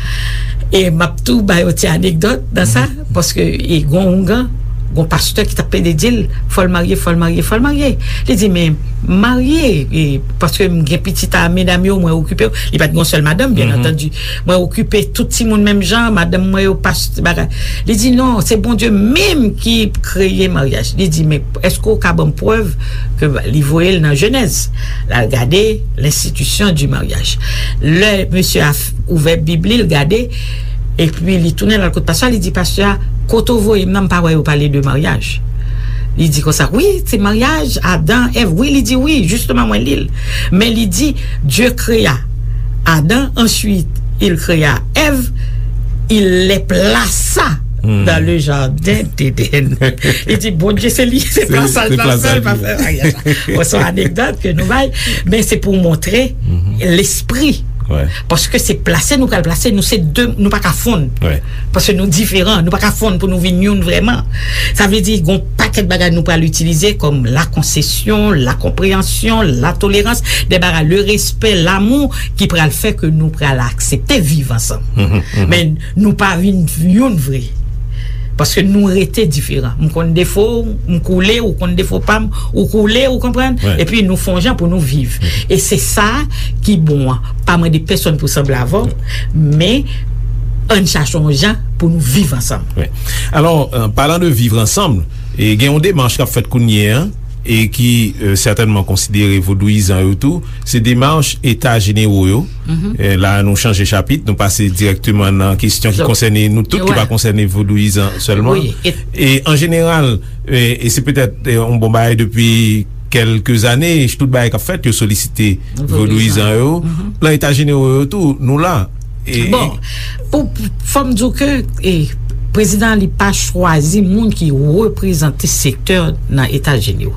E m ap tou ba yon ti anekdòt nan sa, paske e gon oungan, gon pastè ki t ap plede di l, fò l marye, fò l marye, fò l marye. Li di, men marye, e, paske m gen pitit a medam yo, mwen okipe yo. Li pa t gon sèl madanm, byen antandi. Mwen okipe tout timoun menm jan, madanm mwen yo pastè, bagay. Li di, non, se Bondye menm ki kreye maryaj. Li di, men èske w ka ban m prèv ke li voye l nan Jenèz? L al gade l'institution du mariage. Lè mesye a ouvè Bib li, l gade, epi li tounen l al kot pastè a, li di pastè a, kote w voye m nan, m pa wè yo pale de maryaj. Li di konsa, wi, se maryaj, Adan, Èv, wi, li di wi, jisteman mwen li l. Men li di, Dieu créa Adam, ensuite il créa Ève, il les plaça dans le jardin d'Éden. Li di, Bondye se li, se plasaj la fè l, pa fè maryaj la. Bon, se yon anekdòt ke nou bay, men se pou montre lespri Paske se plase nou pral plase, nou se de, nou pa ka fonn. Paske nou diferan, nou pa ka fonn pou nou vin youn vrèman. Sa vle di, gon pakèt bagay nou pral itilize kòm la konsesyon, la konpreyansyon, la tolerans, de bagay, le respè, lamou, ki pral fè ke nou pral aksepte viv ansanm. Men nou pa vin youn vre. Paske nou rete diferan. M konn defo w, m koule, ou konn defo pa m, ou koule, ou konprann? Epi nou fè yon jan pou nou viv. E se sa ki bon an. Pa mande pèsonn pou sanble avè w, men ann chache yon jan pou nou viv ansanm. Alò, palan de viv ansanm, gen yon demach k ap fèt kounye a, e ki sètènman konsidere vodouyizan yo tou, se demach eta jenero yo. La nou chanje chapit, nou pase dirèkteman nan kesyon ki konsène nou tout, ki pa konsène vodouyizan sèlman. E an jeneral, e se petèt yon bon bagay depi kèlke zane, tout bagay k ap fèt, yo solisite vodouyizan yo. Nan eta jenero yo tou, nou la. Bon, pou fò m di w ke prezidan an li pa chwazi moun ki reprezante sektè nan eta jenero.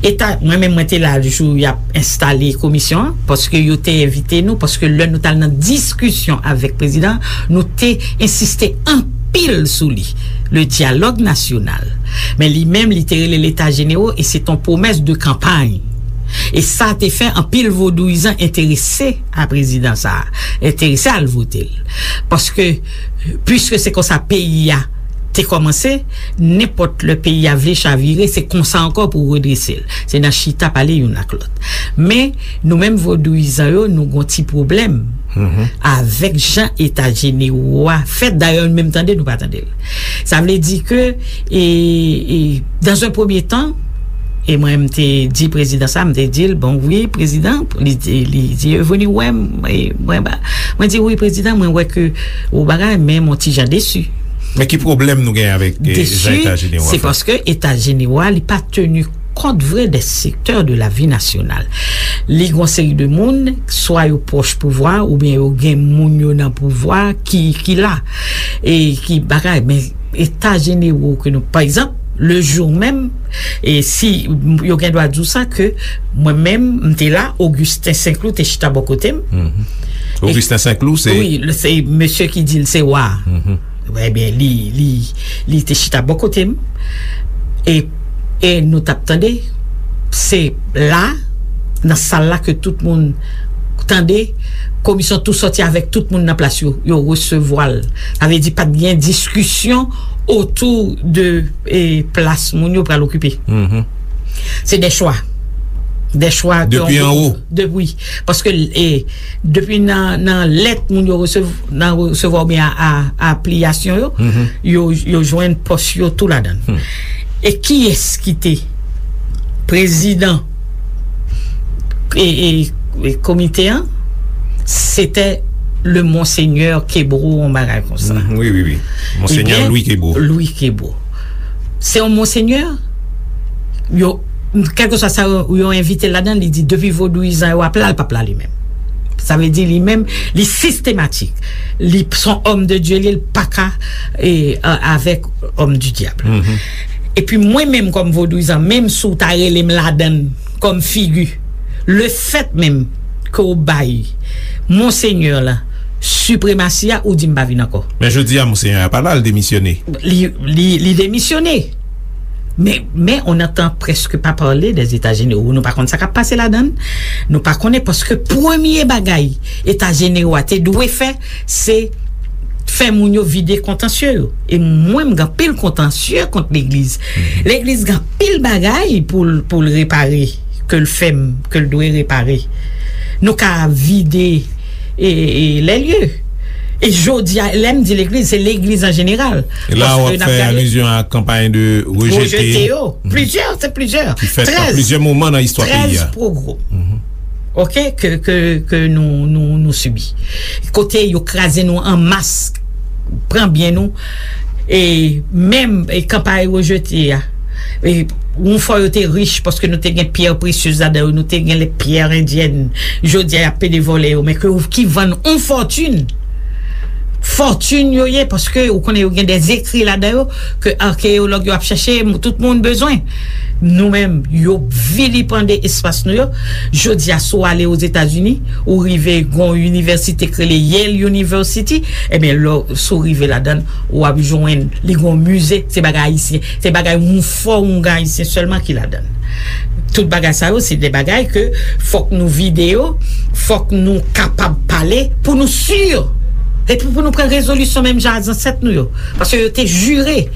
Eta, mwen menm mwen te la jou y ap enstale komisyon an, paske yo te envite nou, paske lè nou t al nan diskisyon avèk prezidan, nou te ensiste anpil sou li, le dyalòg nasyonal. Men li menm li te rele l eta jenero e se t on pwomès de kanpay. E sa te fè anpil vodouyizan enterese a prezidan sa a, enterese al vote l. Paske, piske se konsa peyi a te kòmanse, nenpòt lè peyi a vle chavire, se konsa ankò pou redrese l. Se nan chita pale youn ak lòt. Men, nou menm vodouyizan yo, nou gon ti pwoblèm avèk jan eta jenero a fèt. Dayè, nou menm tande, nou pa tande l. Sa vle di ke, e, e, dans un premier temps, e mwen, m te di prezidan sa, m te di l, bon, wi, prezidan, li, li di, vini wè m, e mwen, ba, mwen di, wi, prezidan, mwen wè ke ou bagay, men m on ti jan desi. Men ki pwoblèm nou gen avèk, e, jan eta jenero a fèt? Desi, se paske eta jenero a, li pa teni kont vre de sektè de la vi nasyonal. Li gon seri de moun, swa yo pwòch pouvwa, oubyen yo gen moun yo nan pouvwa ki, ki la, e ki bagay. Men eta jenero ke nou, pa egzanp, le jou menm, e si yo gen dwa di w sa, ke mwen menm, m te la, Augustin Saint-Cloud te chita bò kote m. Augustin Saint-Cloud, se. Wi, se mesye ki di l se wa. Ebyen, li, li, li te chita bò kote m. E, e nou t ap tande, se la, nan sal la ke tout moun tande, komisyon tou sòti avèk tout moun nan plas yo, yo resevwa l. Sa vle di pa t gen diskisyon otou de, e, plas moun yo pral okipe. Se de chwa. De chwa. Depi anwo. Depi, paske, e, depi nan, nan lèt moun yo resevwa, nan resevwa oubyen a, a, apliyasyon yo, yo, yo jwenn pòs yo tou ladan l. E kiyès ki te prezidan e, e, e komite an? Se te le Monseigneur Kebreau, yon bagay konsa. Wi, wi, wi. Monseigneur Louis Kebreau. Louis Kebreau. Se yon Monseigneur, yo, kèlkeswa sa yo, yo envite l ladan, li di depi vodouyizan yo ap la, l p ap la li menm. Sa vle di li menm, li sistematik. Li se yon homme de Dieu, li, l pa ka, e, a, avèk homme du diable. Epi mwen menm kòm vodouyizan, menm si w ta rele m ladan l kòm figi, lefèt menm ke w bay Monsenyè la sipremasi a, ou di m pa vin ankò. Men jodi a, Monsenyè a pa la, l demisyone. Li, li, li demisyone. Men, men on entend presque pas parler des États généraux. Nou pa konn sa k ap pase ladan l. Nou pa konnen paske premye bagay Eta Jenewo a te dwe fè, se fè moun yo vide kontansye yo. E mwen, m gen anpil kontansye kont legliz. Legliz gen anpil bagay pou l, pou l repare, ke l fè m, ke l dwe repare. Nou ka vide e, e, lè lye. E jodi a, lè m di legliz, se legliz an jeneral. E la w ap fè alizyon a kanpay de rejete. Rejete yo. Plizyè, se plizyè. Ki fèt nan plizyè moman nan istwa peyi a. Trèz pogwòm. Oke, ke, ke, ke nou, nou, nou sibi. Kote yo kraze nou an mas, pran byen nou. E menm, e kanpay rejete a. E yon fwa yo te rich paske nou te gen pyè presyez ladan yo, nou te gen lè pyè endyèn. Jodi a, y ap pede vòlè yo, men ke, ki vann yon fòtin. fòtin yo ye, paske ou konnen yo gen de ekri ladan yo ke akeyològ yo ap chèche, tout moun bezwen. Nou menm, yo vilipande espas nou yo. Jodi a, si w ale Ozetazini, ou rive gon inivèsite k rele Yale University, ebyen, lè w, si w rive ladan l, w ap jwenn li gon mize, se bagay ayisyen, se bagay yon fò, yon ayisyen sèlman ki ladan l. Tout bagay sa yo, se de bagay ke fòk nou vide yo, fòk nou kapab pale pou nou si. Epi pou nou pran rezolisyon menm jan a zansèt nou yo. Paske yo te jire.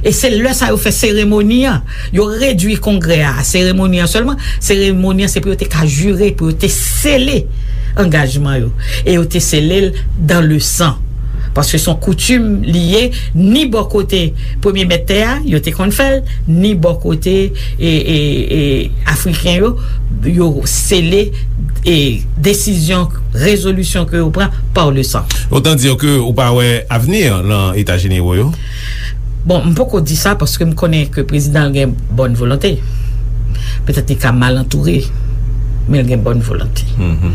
E se lè sa yo fè seremoni an. Yo redui kongrè a, a seremoni an sèlman. Seremoni an, se pou yo te ka jire, pou yo te sele angajman yo. E yo te sele l dans le sang. Paske se yon koutim li ye, ni bò kote premye mèt tè a, yo te konn fè l, ni bò kote, e, e, e, Afriken yo, yo sele, e, desizyon, rezolisyon ke yo pran par le sang. Autant dire que ou pa wè avni lan Eta Jenewo yo? Bon, m poko di sa paske m konnen ke prezidan an gen bòn volonte. Petèt li ka mal antoure, men l gen bòn volonte. Mhm.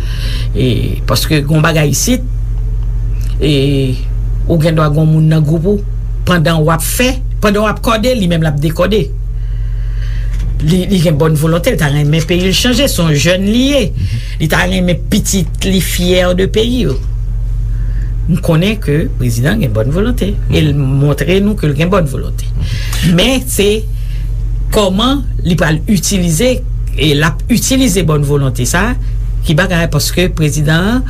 E, paske gon bagay isit, e, ou gen dwa gon moun nan gwoup ou, pandan w ap fè, pandan w ap kòde, li menm l ap dekòde. Li, li gen bòn volonte, li ta renmen peyi l chanje, se yon jèn li ye. Li ta renmen pitit li fyè de peyi yo. M konnen ke prezidan gen bòn volonte. E l montre nou ke l gen bòn volonte. Men se kòman li pral itilize, e l ap itilize bòn volonte sa, ki bagay, paske prezidan an,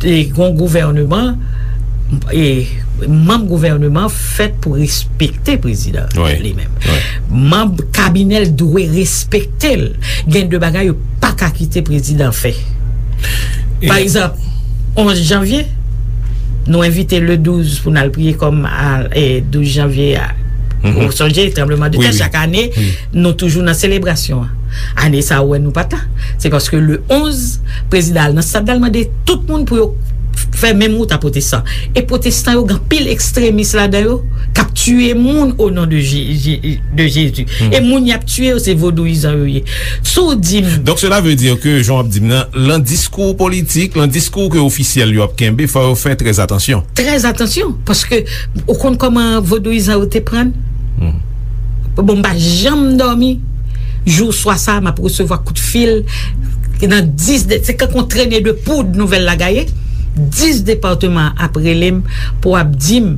e, gon gouvèneman, e, manm gouvèneman fèt pou respekte prezidan an li menm. Manm kabinè l dwe respekte l. Gen de bagay yo pa ka kite prezidan fè. Pa egzanp, onz janvye, nou envite le douz pou n al priye kòm a, e, douz janvye a. Ou sonje, tranbleman de tè, chak ane, nou toujou nan selebrasyon an. Ane sa a, ou wè nou pa t la. Se paske le onz, prezidan al nan stad la, l mande tout moun pou yo fè menm wout a pwotestan. E pwotestan yo, gen anpil ekstremis ladan yo, k ap tiye moun o non de Je-, Je-, de Jezi. E moun y ap tiye yo, se vodouyizan yo ye. Si w di m Donk, cela veut dire que, jan w ap di m nan, lan diskou politik, lan diskou ke ofisyèl yo ap kenbe, fò yo fè trè atansyon. Trè atansyon, paske ou konn kòman vodouyizan yo te pran n? Bon, m pa janm dòmi. Jou swa sa, m ap resevwa kout fil. Nan dis de, se kankou yon trene de poud nouvèl la gaye. Dis depatman ap rele m pou ap di m,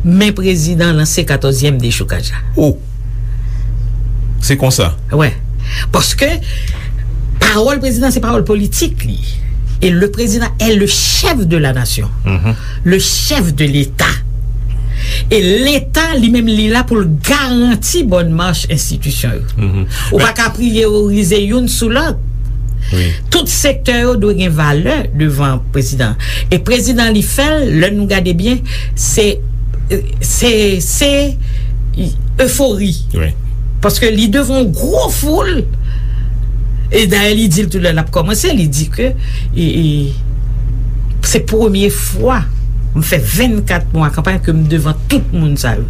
men prezidan lanse katòzyèm dechoukaj la. Oh! Se konsa. Wè. Paske pawòl prezidan, se pawòl politik li. E le président est le chef de la nation, le chef de l'État. E Leta, li menm, li la pou l garanti bòn mach enstitisyon yo. Ou pa ka priyorize youn sou lòt. Tout sektè yo dwe gen valè devan prezidan. E prezidan, li fè l, lè nou gade byen, se, se, se efori. Paske li devan yon gwo foul. E dayè, li di l tou lè l ap kòmanse, li di ke, e, e, se premye fwa m fè vennkat mwa kanpay ke m devan tout moun sa yo.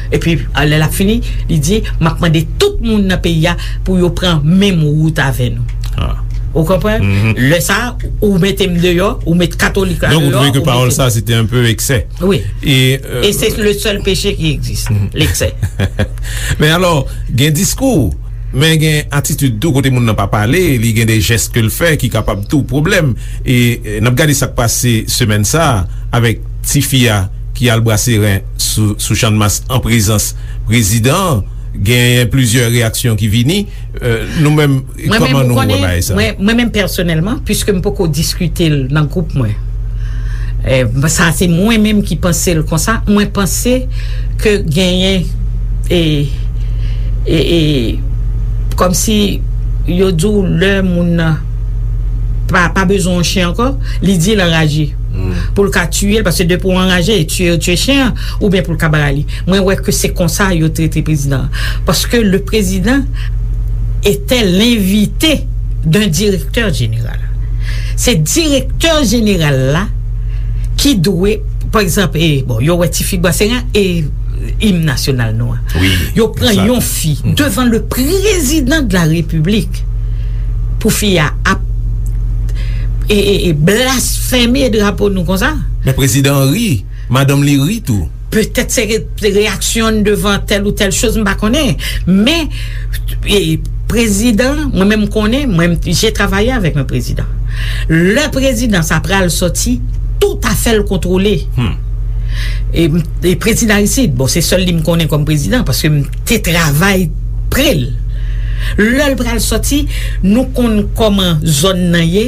Epi, lè l ap fini, li di, m ap mande tout moun nan peyi a pou yo pran menm wout avè nou. Ou konprann? Lè sa a, ou mete m deyò, ou met katolik la deyò. Donk, ou twouve ke pawòl sa, se te un peu excès. Wi. E, euh, e se le sèl peche ki egziste, l'excès. Men alò, gen diskou, men gen atitid tou, kote moun nan pa pale, li gen de jès ke l fè ki kapab tou pwoblèm. E, e, n ap gade sa k pase semèn sa a avèk tifi a ki al brase ren sou, sou Channmas an prezans prezidan an. Genyen plizyè reyaksyon ki vini. Euh, nou menm, kòman nou wè bagay sa? Mwen menm, pèsonèlman, piske m poko diskite l nan gwoup mwen, e, sa se mwen menm ki panse l konsa. Mwen panse ke genyen, e, e, e, kòmsi yo di w lè moun nan pa, pa bezwen yon chen ankò, li di l anraje. Pou l ka tiye l, paske depi w anraje, e tiye, yo tiye chen an, oubyen pou l ka ba li. Mwen wè ke se konsa yo trete prezidan an. Paske le président était l'invité d'un directeur général. Se direktè jeneral la ki dwe, pa egzanp, e, bon, yo wè ti fig Bwaseran e im nasyonal nou an. Yo pran yon fi devan le président de la République pou fi a ap, e, e, e blasfeme drapo nou konsa. Men prezidan an ri. Madanm li ri tou. Petèt se re- se reyaksyon devan tèl ou tèl choz, m pa konnen. Men, e, prezidan, mwen menm m konnen, mwen, j'ai travaillé avec un président. Lè prezidan sa pral sòti, tout afè l kontwole. E, e prezidan Aristide, bon, se sèl li m konnen kòm prezidan, paske m te travay pre l. Lè l pral sòti, nou konn kòman zòn nan ye,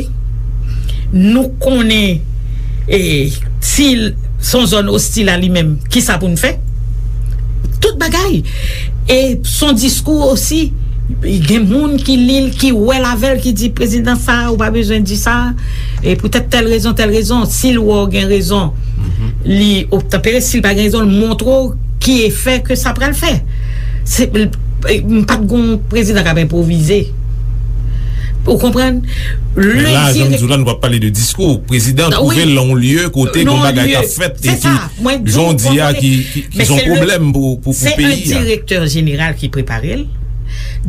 nou konnen, e, si l se yon zòn ostil a li menm, kisa pou n fè? Tout bagay. E se yon diskou osi, gen moun ki li l, ki wè l avè l, ki di, prezidan sa, ou pa bezwen di sa, e poutèt tèl rezon, tèl rezon, si l wè w gen rezon, li obtanpere, si l pa gen rezon, l montre w ki efè ke sa pral fè. Se, m pa t gon prezidan k ap enpwovize. Ou konprann? Men la, jan m di w la, nou p ap pale de diskou. Prezidan twouve l nan yon lye kote gen bagay k ap fèt e ki, jan w di a, ki, ki, ki se yon pwoblèm pou, pou, pou peyi a. Se yon direktè jeneral ki prepare l.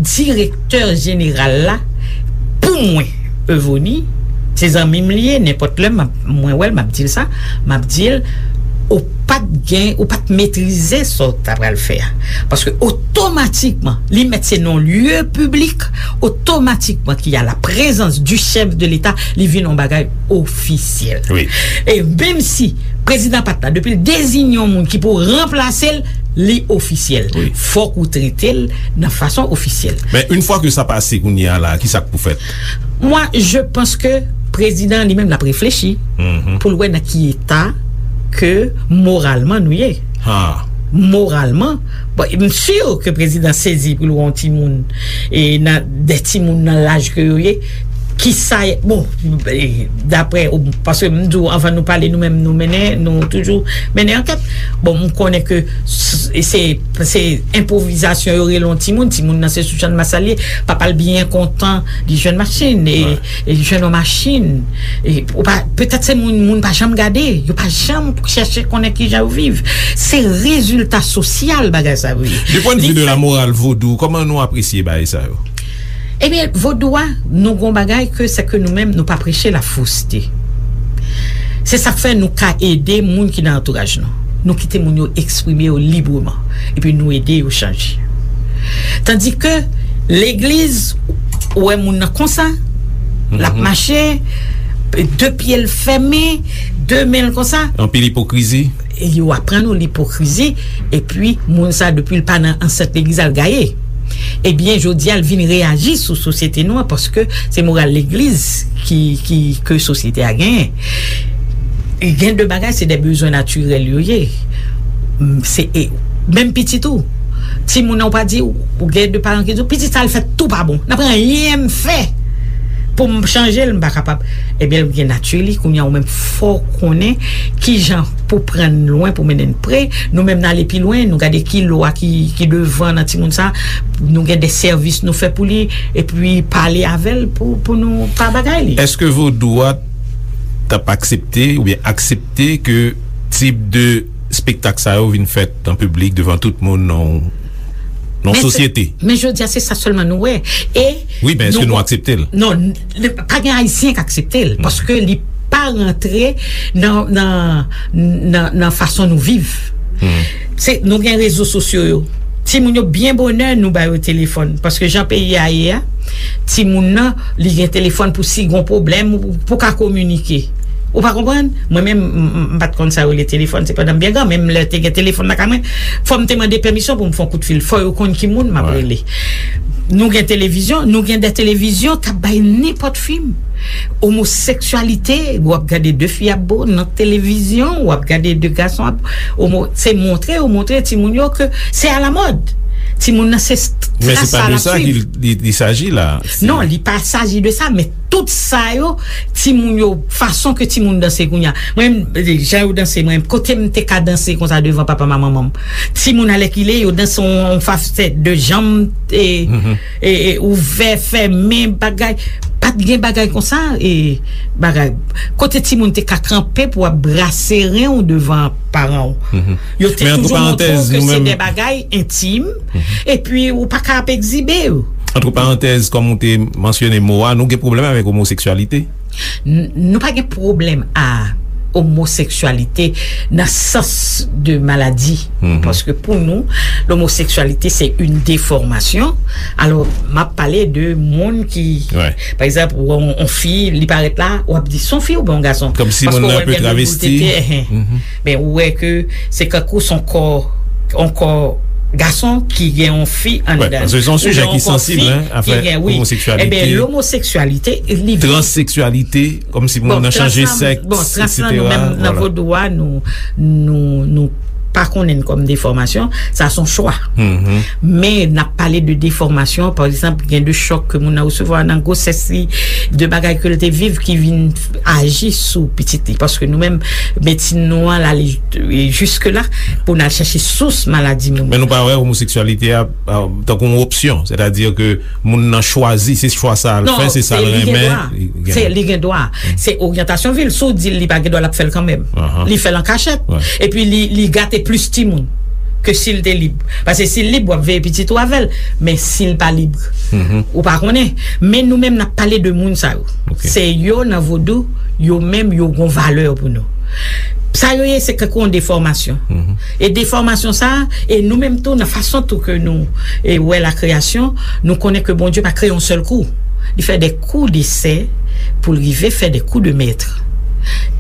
Direktè jeneral la, pou mwen, Evoni, se zanmi m li ye, nenpòt lè m ap, mwen wè l, m ap di l sa, m ap di l, ou pa t gen, ou pa t metrize sa w ta pral fè a. Paske otomatikman, li mèt se non lye piblik, otomatikman ki a la prezans di chèf de leta, li vin yon bagay ofisyèl. E menm si prezidan pa t la, depi l deziye yon moun ki pou ranplase l, li ofisyèl. Fòk ou trete l nan fason ofisyèl. Men, yon fwa ke sa pase kounye a la, kisa k pou fèt? Mwen, je pense que prezidan li menm l ap reflechi pou l wè nan ki eta ke moralman nou ye. Moralman, bon, m si ke prezidan sezi pou l wè yon timoun, e nan, de timoun nan laj ke yo ye, kisa, bon, e, daprè, paske m di w, anvan nou pale, nou menm, nou mennen, nou toujou mennen ankèt. Bon, m konnen ke s- se, se enpwovizasyon yo rele yon timoun, timoun nan se sou Channmas li ye, papa l byen kontan, li jwenn machin, e, e li jwenn yon machin. E, ou pa, petèt se moun, moun pa janm gade, yo pa janm chèche konnen kijan yo viv. Se rezilta sosyal bagay sa yo ye. Du point de vue de la morale vodou, kòman nou apresye bagay sa yo? Ebyen, vodou a, nou gon bagay ke se ke nou menm, nou pa preche la fausseté. Se sa k fè nou ka ede moun ki nan antouraj nou. Nou kite moun yo eksprime yo libreman. Epi nou ede yo chanje. Tandis ke legliz, ou wè moun nan konsa, l ap mache, de pye l fèmen, de men l konsa. Anpil ipokrizi. E yo aprann ou lipokrizi, epi moun sa, depi l pa nan ansent legliz, al gaye. Ebyen, jodi a, l vin reyaji sou sosyete nou an, paske se moral legliz ki, ki, ke sosyete a genyen. E gen de bagay, se de bezwen natirèl yo ye. M, se, e, menm pitit ou. Timoun nan, ou pa di, ou gen de paran ki di w, pitit sa, l fè tou pa bon. N ap anyen m fè pou m chanje l, m pa kapab. Ebyen, l gen nati li, kounye a, ou menm, fò w konnen kijan pou pran n lwen, pou mennen n pre. Nou menm, n ale pi lwen, nou gade ki lwa ki, ki devan nan timoun sa, nou gen de sèvis nou fè pou li, epi pale avè l pou, pou nou pa bagay li. Èske vodou a t ap aksepte oubyen aksepte ke tip de spektak sa yo vin fèt an piblik devan tout moun nan, nan sosyete? Men jodi a, se sa sèlman nou wè. E wi, men èske nou aksepte l? Non, n- pa gen Ayisyen k aksepte l, paske li pa rantre nan, nan, nan, nan fason nou viv. Se, nou gen rezo sosyo yo. Timoun yo byen bonè, nou ba yo telefòn. Paske jan peyi a ye a, timoun nan, li gen telefòn pou si gon pwoblèm, ou pou ka kominike. Ou pa konprann? Mwen menm, m, m, m pa t konn sa yo rele telefòn, se pandan m byen gran, menm lè te gen telefòn lakay mwen, fò m te mande pèmisyon pou m fè yon kout fil. Fò yo konn ki moun m ap rele. Nou gen televizyon, nou gen de televizyon k ap bay nenpòt fim. Omoseksyalite, w ap gade de fi ap bo nan televizyon, w ap gade de gason ap omo, se montre, yo montre timoun yo ke se alamòd. Timoun nan se tras sa l ap swiv. Men se pa de sa ki li, li saji la. Non, li pa saji de sa, men tout sa yo, timoun yo, fason ke timoun danse kounye a. Mwen, jan yo danse, mwen, kote m te ka danse konsa devan papa m ak manman m. Timoun alèkile, yo danse yon, yon fason de janm, e, e, e, ouvè, fèmen, bagay. Pa t gen bagay konsa, e, bagay. Kote timoun te ka kanpe pou ap brase ren w devan paran w. Yo te toujou montre w ke se de bagay entim, epi ou pa ka ap egzibe yo. Antre parantèz, kòm ou te mansyone mo a, nou gen pwoblèm avèk omoseksyalite? N- nou pa gen pwoblèm a omoseksyalite nan sans de maladi. Paske pou nou, lomoseksyalite se yon defòmasyon. Alò, m ap pale de moun ki, pa egzanp, ou wè yon, yon fi, li parèt la, w ap di, "Se yon fi oubyen yon gason?" Kòmsi moun nan pe travesti. Men ou wè ke se kankou se yon kò, yon kò gason ki gen yon fi anndan. Paske se yon sijè ki sansib, hein, afè omoseksyalite, transeksyalite, kòmsi moun nan chanje sèks, etsetera. Bon, trans la, nou menm nan vodou a, nou, nou, nou pa konnen l kòm defòmasyon, sa se yon chwa. Men n ap pale de defòmasyon, pa egzanp, gen de chòk ke moun nan resevwa nan gwosès li, de bagay ke l te viv ki vin aji sou pitit li. Paske nou menm, medsin nou an, l ale jiske la pou n al chèche sous maladi moun. Men nou pa wè omoseksyalite a, a, tankou yon opsyon, sètadi ke moun nan chwazi, se chwa sa l fè, se sa l renmen. Non, li gen dwa. Se, li gen dwa. Se oryantasyon vi l. Si w di l li pa gen dwa, l ap fè l kanmenm. Li fè l an kachèt. Epi li, li gate plis timoun ke si l te lib. Paske si l lib, w ap veye pitit ou avè l. Men si l pa lib, ou pa konnen. Men nou menm, n ap pale de moun sa yo. Se yo nan vodou, yo menm, yo gon valè pou nou. Sa yo ye, se kankou yon defòmasyon. E defòmasyon sa a, e nou menm tou, nan fason tou ke nou, e, wè lakreyasyon, nou konnen ke Bondye pa kreye yon sèl kou. Li fè de kou de sè pou l rive fè de kou de mèt.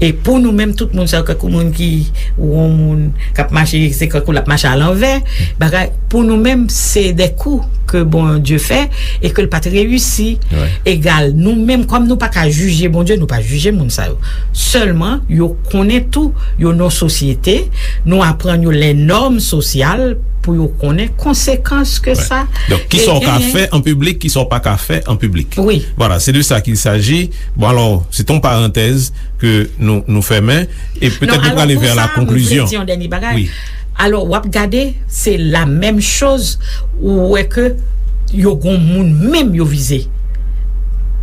E pou nou menm, tout moun sa yo, kankou moun ki, ou yon moun k ap mache, se kankou l ap mache alanvè, bagay, pou nou menm, se de kou ke Bondye fè e ke l pa t reyisi. Egal, nou menm, kòm nou pa ka jije Bondye, nou pa jije moun sa yo. Sèlman, yo konnen tou, yo nan sosyete, nou aprann yo lè nòm sosyal pou yo konnen konsekans ke sa genyen. Donk, kisa w ka fè an piblik, kisa w pa ka fè an piblik. Wi. Vwala, se de sa qu'il s'agit. Bon, alò, se te yon parantèz ke nou, nou fèmen, e petèt nou prale vè la konklizyon. Alò, w ap gade, se la menm choz, ou wè ke yo gon moun menm yo vize.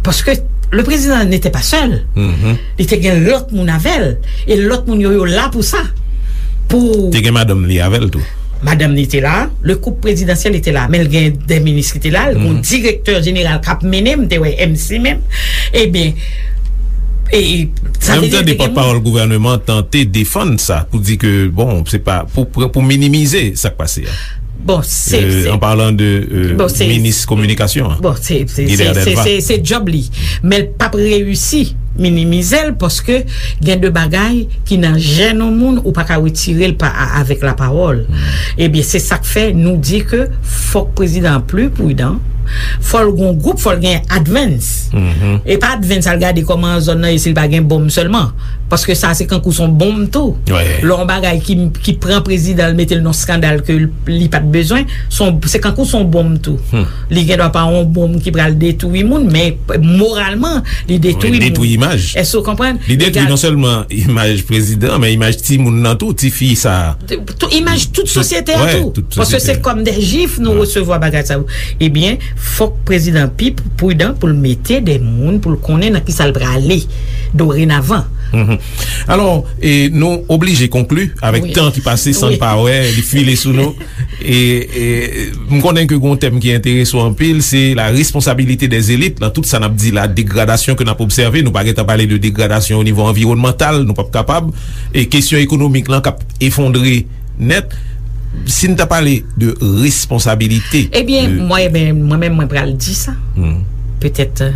Paske le président n'était pas seul. Li te gen lòt moun avè l. E lòt moun yo, yo la pou sa. Pou... Te gen madanm li avè l tou. Madanm li te la, le couple présidentiel était là, men l gen de minis ki te la, l gen yon direktè jeneral k ap mennen, m te wè M C menm. Ebyen, e, e, sa vle di, te gen moun. Menm tande pòtpawòl gouvènman an tante defann sa, pou di ke, bon, se pa, pou, pou, pou minimize sa k pase a. Bon, se, euh, se, an palan de, euh, bon, se, minis kominikasyon an, bon, se, se, Guilbert Delva. Se, se, se djòb li. Men l p ap reyisi minimize l, paske gen de bagay ki nan jèn yon moun, ou pa ka retire l pa, a, avèk lapawòl. Ebyen, se sa k fè nou di ke fòk prezidan an pli pridan, fò l gon gwoup, fò l gen advance. E pa advance al gade kòman zòn nan ye, si l pa gen bonm sèlman. Paske sa se kankou se yon bonm tou. Lè yon bagay ki, ki pran prezidan l, mete l nan skandal ke l, li pa t bezwen, se yon, se kankou se yon bonm tou. Li gen dwa pa yon bonm ki pral detwi moun, men moralman, li detwi moun. Wi, detwi imaj. Èske w konprann? Li detwi non sèlman imaj prezidan, men imaj timoun nan tou, tifi sa. Tou, imaj tout sosyete a tou. Tout sosyete. Paske se kòm de jif nou resevwa bagay sa yo. Ebyen, fòk prezidan pi pridan pou l mete de moun, pou l konnen nan kisa l prale dorenavan. Alò, e, nou oblije konkli avèk tan ki pase san n pa wè, li file sou nou. E, e, m konnen ke gon tèm ki enterese w anpil, se la responsabilité des élites nan tout sa n ap di la, degradasyon ke n ap obsève. Nou pa gentan pale de degradasyon o nivo anviwònmantal, nou p ap kapab. E kesyon ekonomik lan k ap efondre nèt. Si n ta pale de responsabilite, ebyen, mwen, ebyen, mwen menm, mwen pral di sa. Petèt, euh,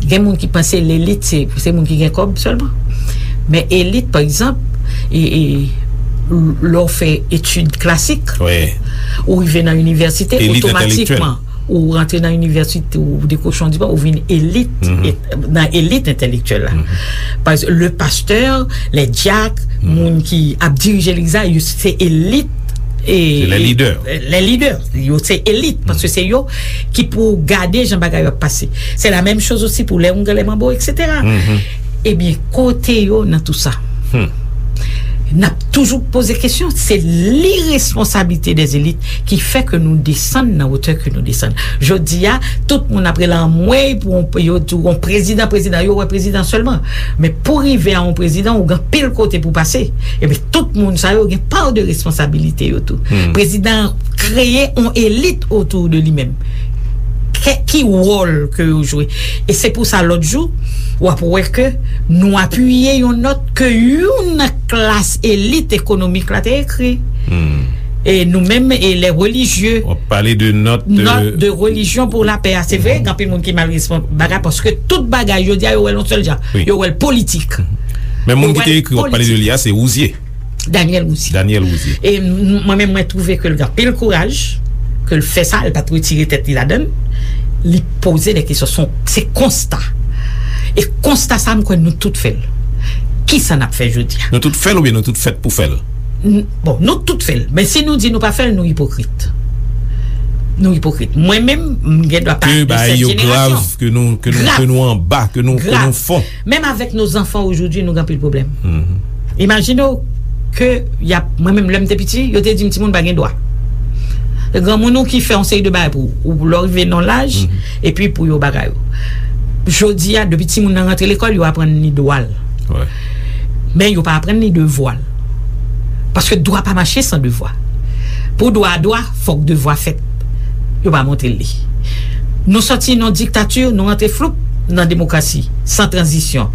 gen moun ki panse lelit se, se moun ki gen kòb sèlman. Men elit, pa egzanp, e, e, lè w fè etid klasik, ou rive nan inivèsite, otomatikman, ou rantre nan inivèsite, ou dekwoche yon diplòm, ou vin elit, nan elit entèlektyèl la. Pa egzanp, le pastè, lè dyak, moun ki ap dirije legliz la, yo se elit, e, se lè lidè. Lè lidè, yo se elit, paske se yo ki pou gade jan bagay yo ap pase. Se la menm choz osi pou lè oungan, lè manbo, etsetera. Ebyen, kote yo nan tou sa? N ap toujou poze kesyon, se liresponsabilite dè elit ki fè ke nou desann nan wotè ke nou desann. Jodi a, tout moun ap rele anmwey pou yon, yo di w yon prezidan, prezidan, yo wè prezidan sèlman. Men pou rive a yon prezidan, ou gen anpil kote pou pase. Ebyen, tout moun sa yo gen pa de responsabilite yo tou. Prezidan an kreye yon elit otou de li menm. Kè- ki wòl ke yo jwe. E se pou sa, lòt jou, w ap wè ke nou apiye yon nòt ke youn nan klas elit ekonomik la te ekri. E nou menm, e lè relijye, w ap pale de nòt, nòt de relijyon pou lapè a. Se vre, gen anpil moun ki mal respon bagay, paske tout bagay, jodi a, yo wè l yon sèl jan. Wi. Yo wè l politik. Men moun ki te ekri, w ap pale de li a, se Rouzier. Daniel Rouzier. Daniel Rouzier. E m- mwen menm, mwen twouve ke l gen anpil kouraj, ke l fè sa, l pa t retire tèt li ladan l. Li poze de kesyon, se yon- se konsta. E konsta sa, m kwè nou tout fè l. Kisa n ap fè jodi a? Nou tout fè l oubyen nou tout fèt pou fè l? N- bon, nou tout fè l. Men si nou di nou pa fè l, nou ipokrit. Nou ipokrit. Mwen menm, m gen dwa pa de sèt jenerasyon. Ke bagay yo grav, ke nou, ke nou, ke nou anba, ke nou, ke nou fon. Menm avèk nos enfants aujourd'hui, nou gen anpil pwoblèm. Imajine w ke y ap, mwen menm, lè m te piti, yo te di m timoun pa gen dwa. Granmoun ou ki fè yon seri de bagay pou ou, ou lè w rive nan laj, epi pou yo bagay ou. Jodi a, depi timoun nan rantre lekòl, yo aprann li dwa l. Men yo pa aprann li devwa l. Paske dwa pa mache san devwa. Pou dwa a dwa, fòk devwa fèt. Yo pa montre l li. Nou sòti nan diktati, nou rantre floup nan demokrasi, san tranzisyon.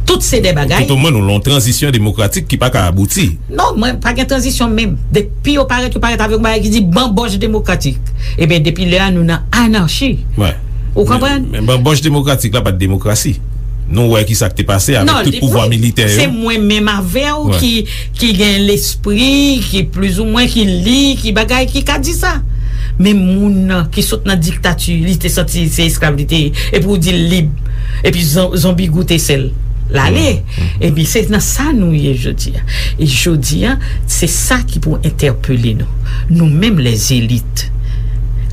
Tout se de bagay. Tout omwen, nou lan yon tranzisyon demokratik ki pa ka abouti. Non, mwen, pa gen tranzisyon menm. Depi yo parèt, yo parèt avèk yon bagay ki di banbòch demokratik. Ebyen, depi lè a, nou nan anachi. Ou konprann? Men, men banbòch demokratik la pa t demokrasi. Nou wè ki sa k te pase avèk tout pouvwa militè yo. Se mwen menm avè w ki, ki gen lespri, ki plizoumwen, ki li, ki bagay, ki ka di sa. Men moun nan ki sot nan diktati, li te santi se esklav li te ye, epi w di l lib, epi zon- zonbi goute sèl, l ale. Epi se nan sa nou ye jodi a. E jodi a, se sa ki pou entèpele nou. Nou menm, lèzelit.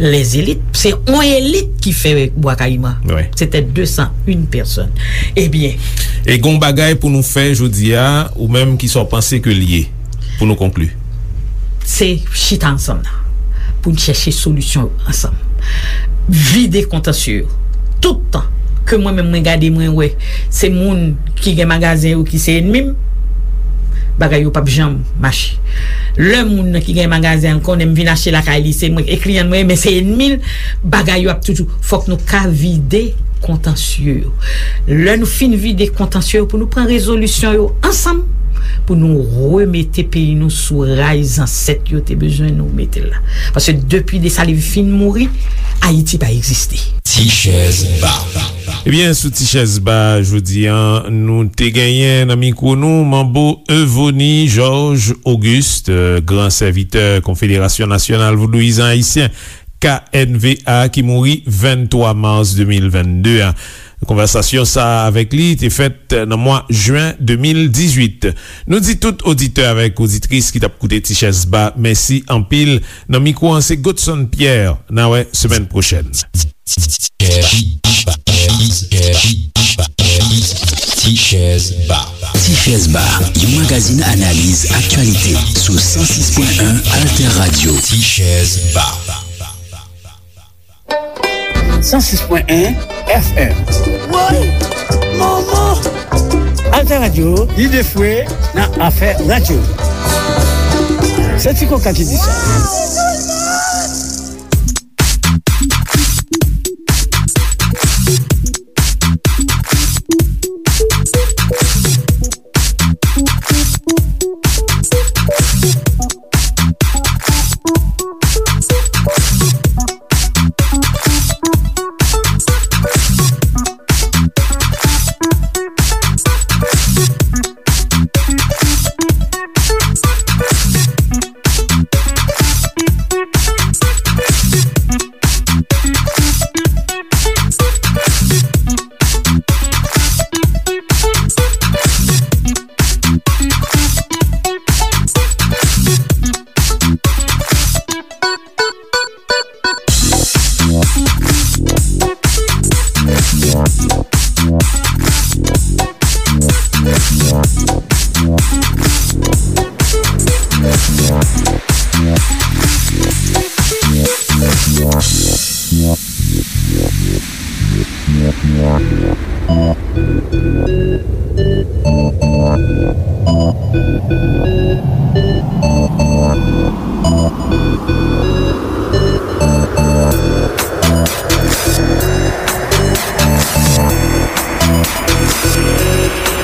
Lèzelit, se yon elit ki fè Bwa Kayiman. Wi. Se te de san en pèsòn. Ebyen. E gon bagay pou nou fè jodi a, ou menm, kisa w panse ke l ye, pou nou konkli? Se chita ansanm nan, pou n chèche solisyon yo ansanm. Vide kontansye yo. Tout tan ke mwen menm mwen gade, mwen wè se moun ki gen magazen yo ki se ènmi m, bagay yo p ap janm mache. Lè moun nan ki gen magazen an konnen m vin achte lakay li, se mwen e kliyan mwen, men se ènmi l, bagay yo ap toujou. Fòk nou ka vide kontansye yo. Lè nou fin vide kontansye yo, pou nou pran rezolisyon yo ansanm, pou nou remete peyi nou sou ray zansèt yo te bezwen nou mete l la. Paske depi Desalin fin mouri, Ayiti pa egziste. Ti chèz ba. Ebyen, sou Ti chèz ba, jodi a, nou te genyen nan mikwo nou Manbo Euvony Georges Auguste, gran sèvitè Konfederasyon Nasyonal Vodouyizan Ayisyen, K N V A, ki mouri venntwa mas de mil vennde a. Konvèsasyon sa a avèk li te fèt nan mwa jen de mil dizuit. Nou di tout oditè avèk oditris ki t ap koute Ti Chèz Ba, mèsi anpil. Nan mikwo an, se Godson Pierre. N a wè semèn pwochèn. Ti Chèz Ba. Ti Chèz Ba, yon magazin analiz aktyalite sou san sis pwen en Alter Radio. Ti Chèz Ba. San sis pwen en F M. Woy! Manman! Alter Radio, lide fwe nan afè radyo. Se Ti Koka ki di sa.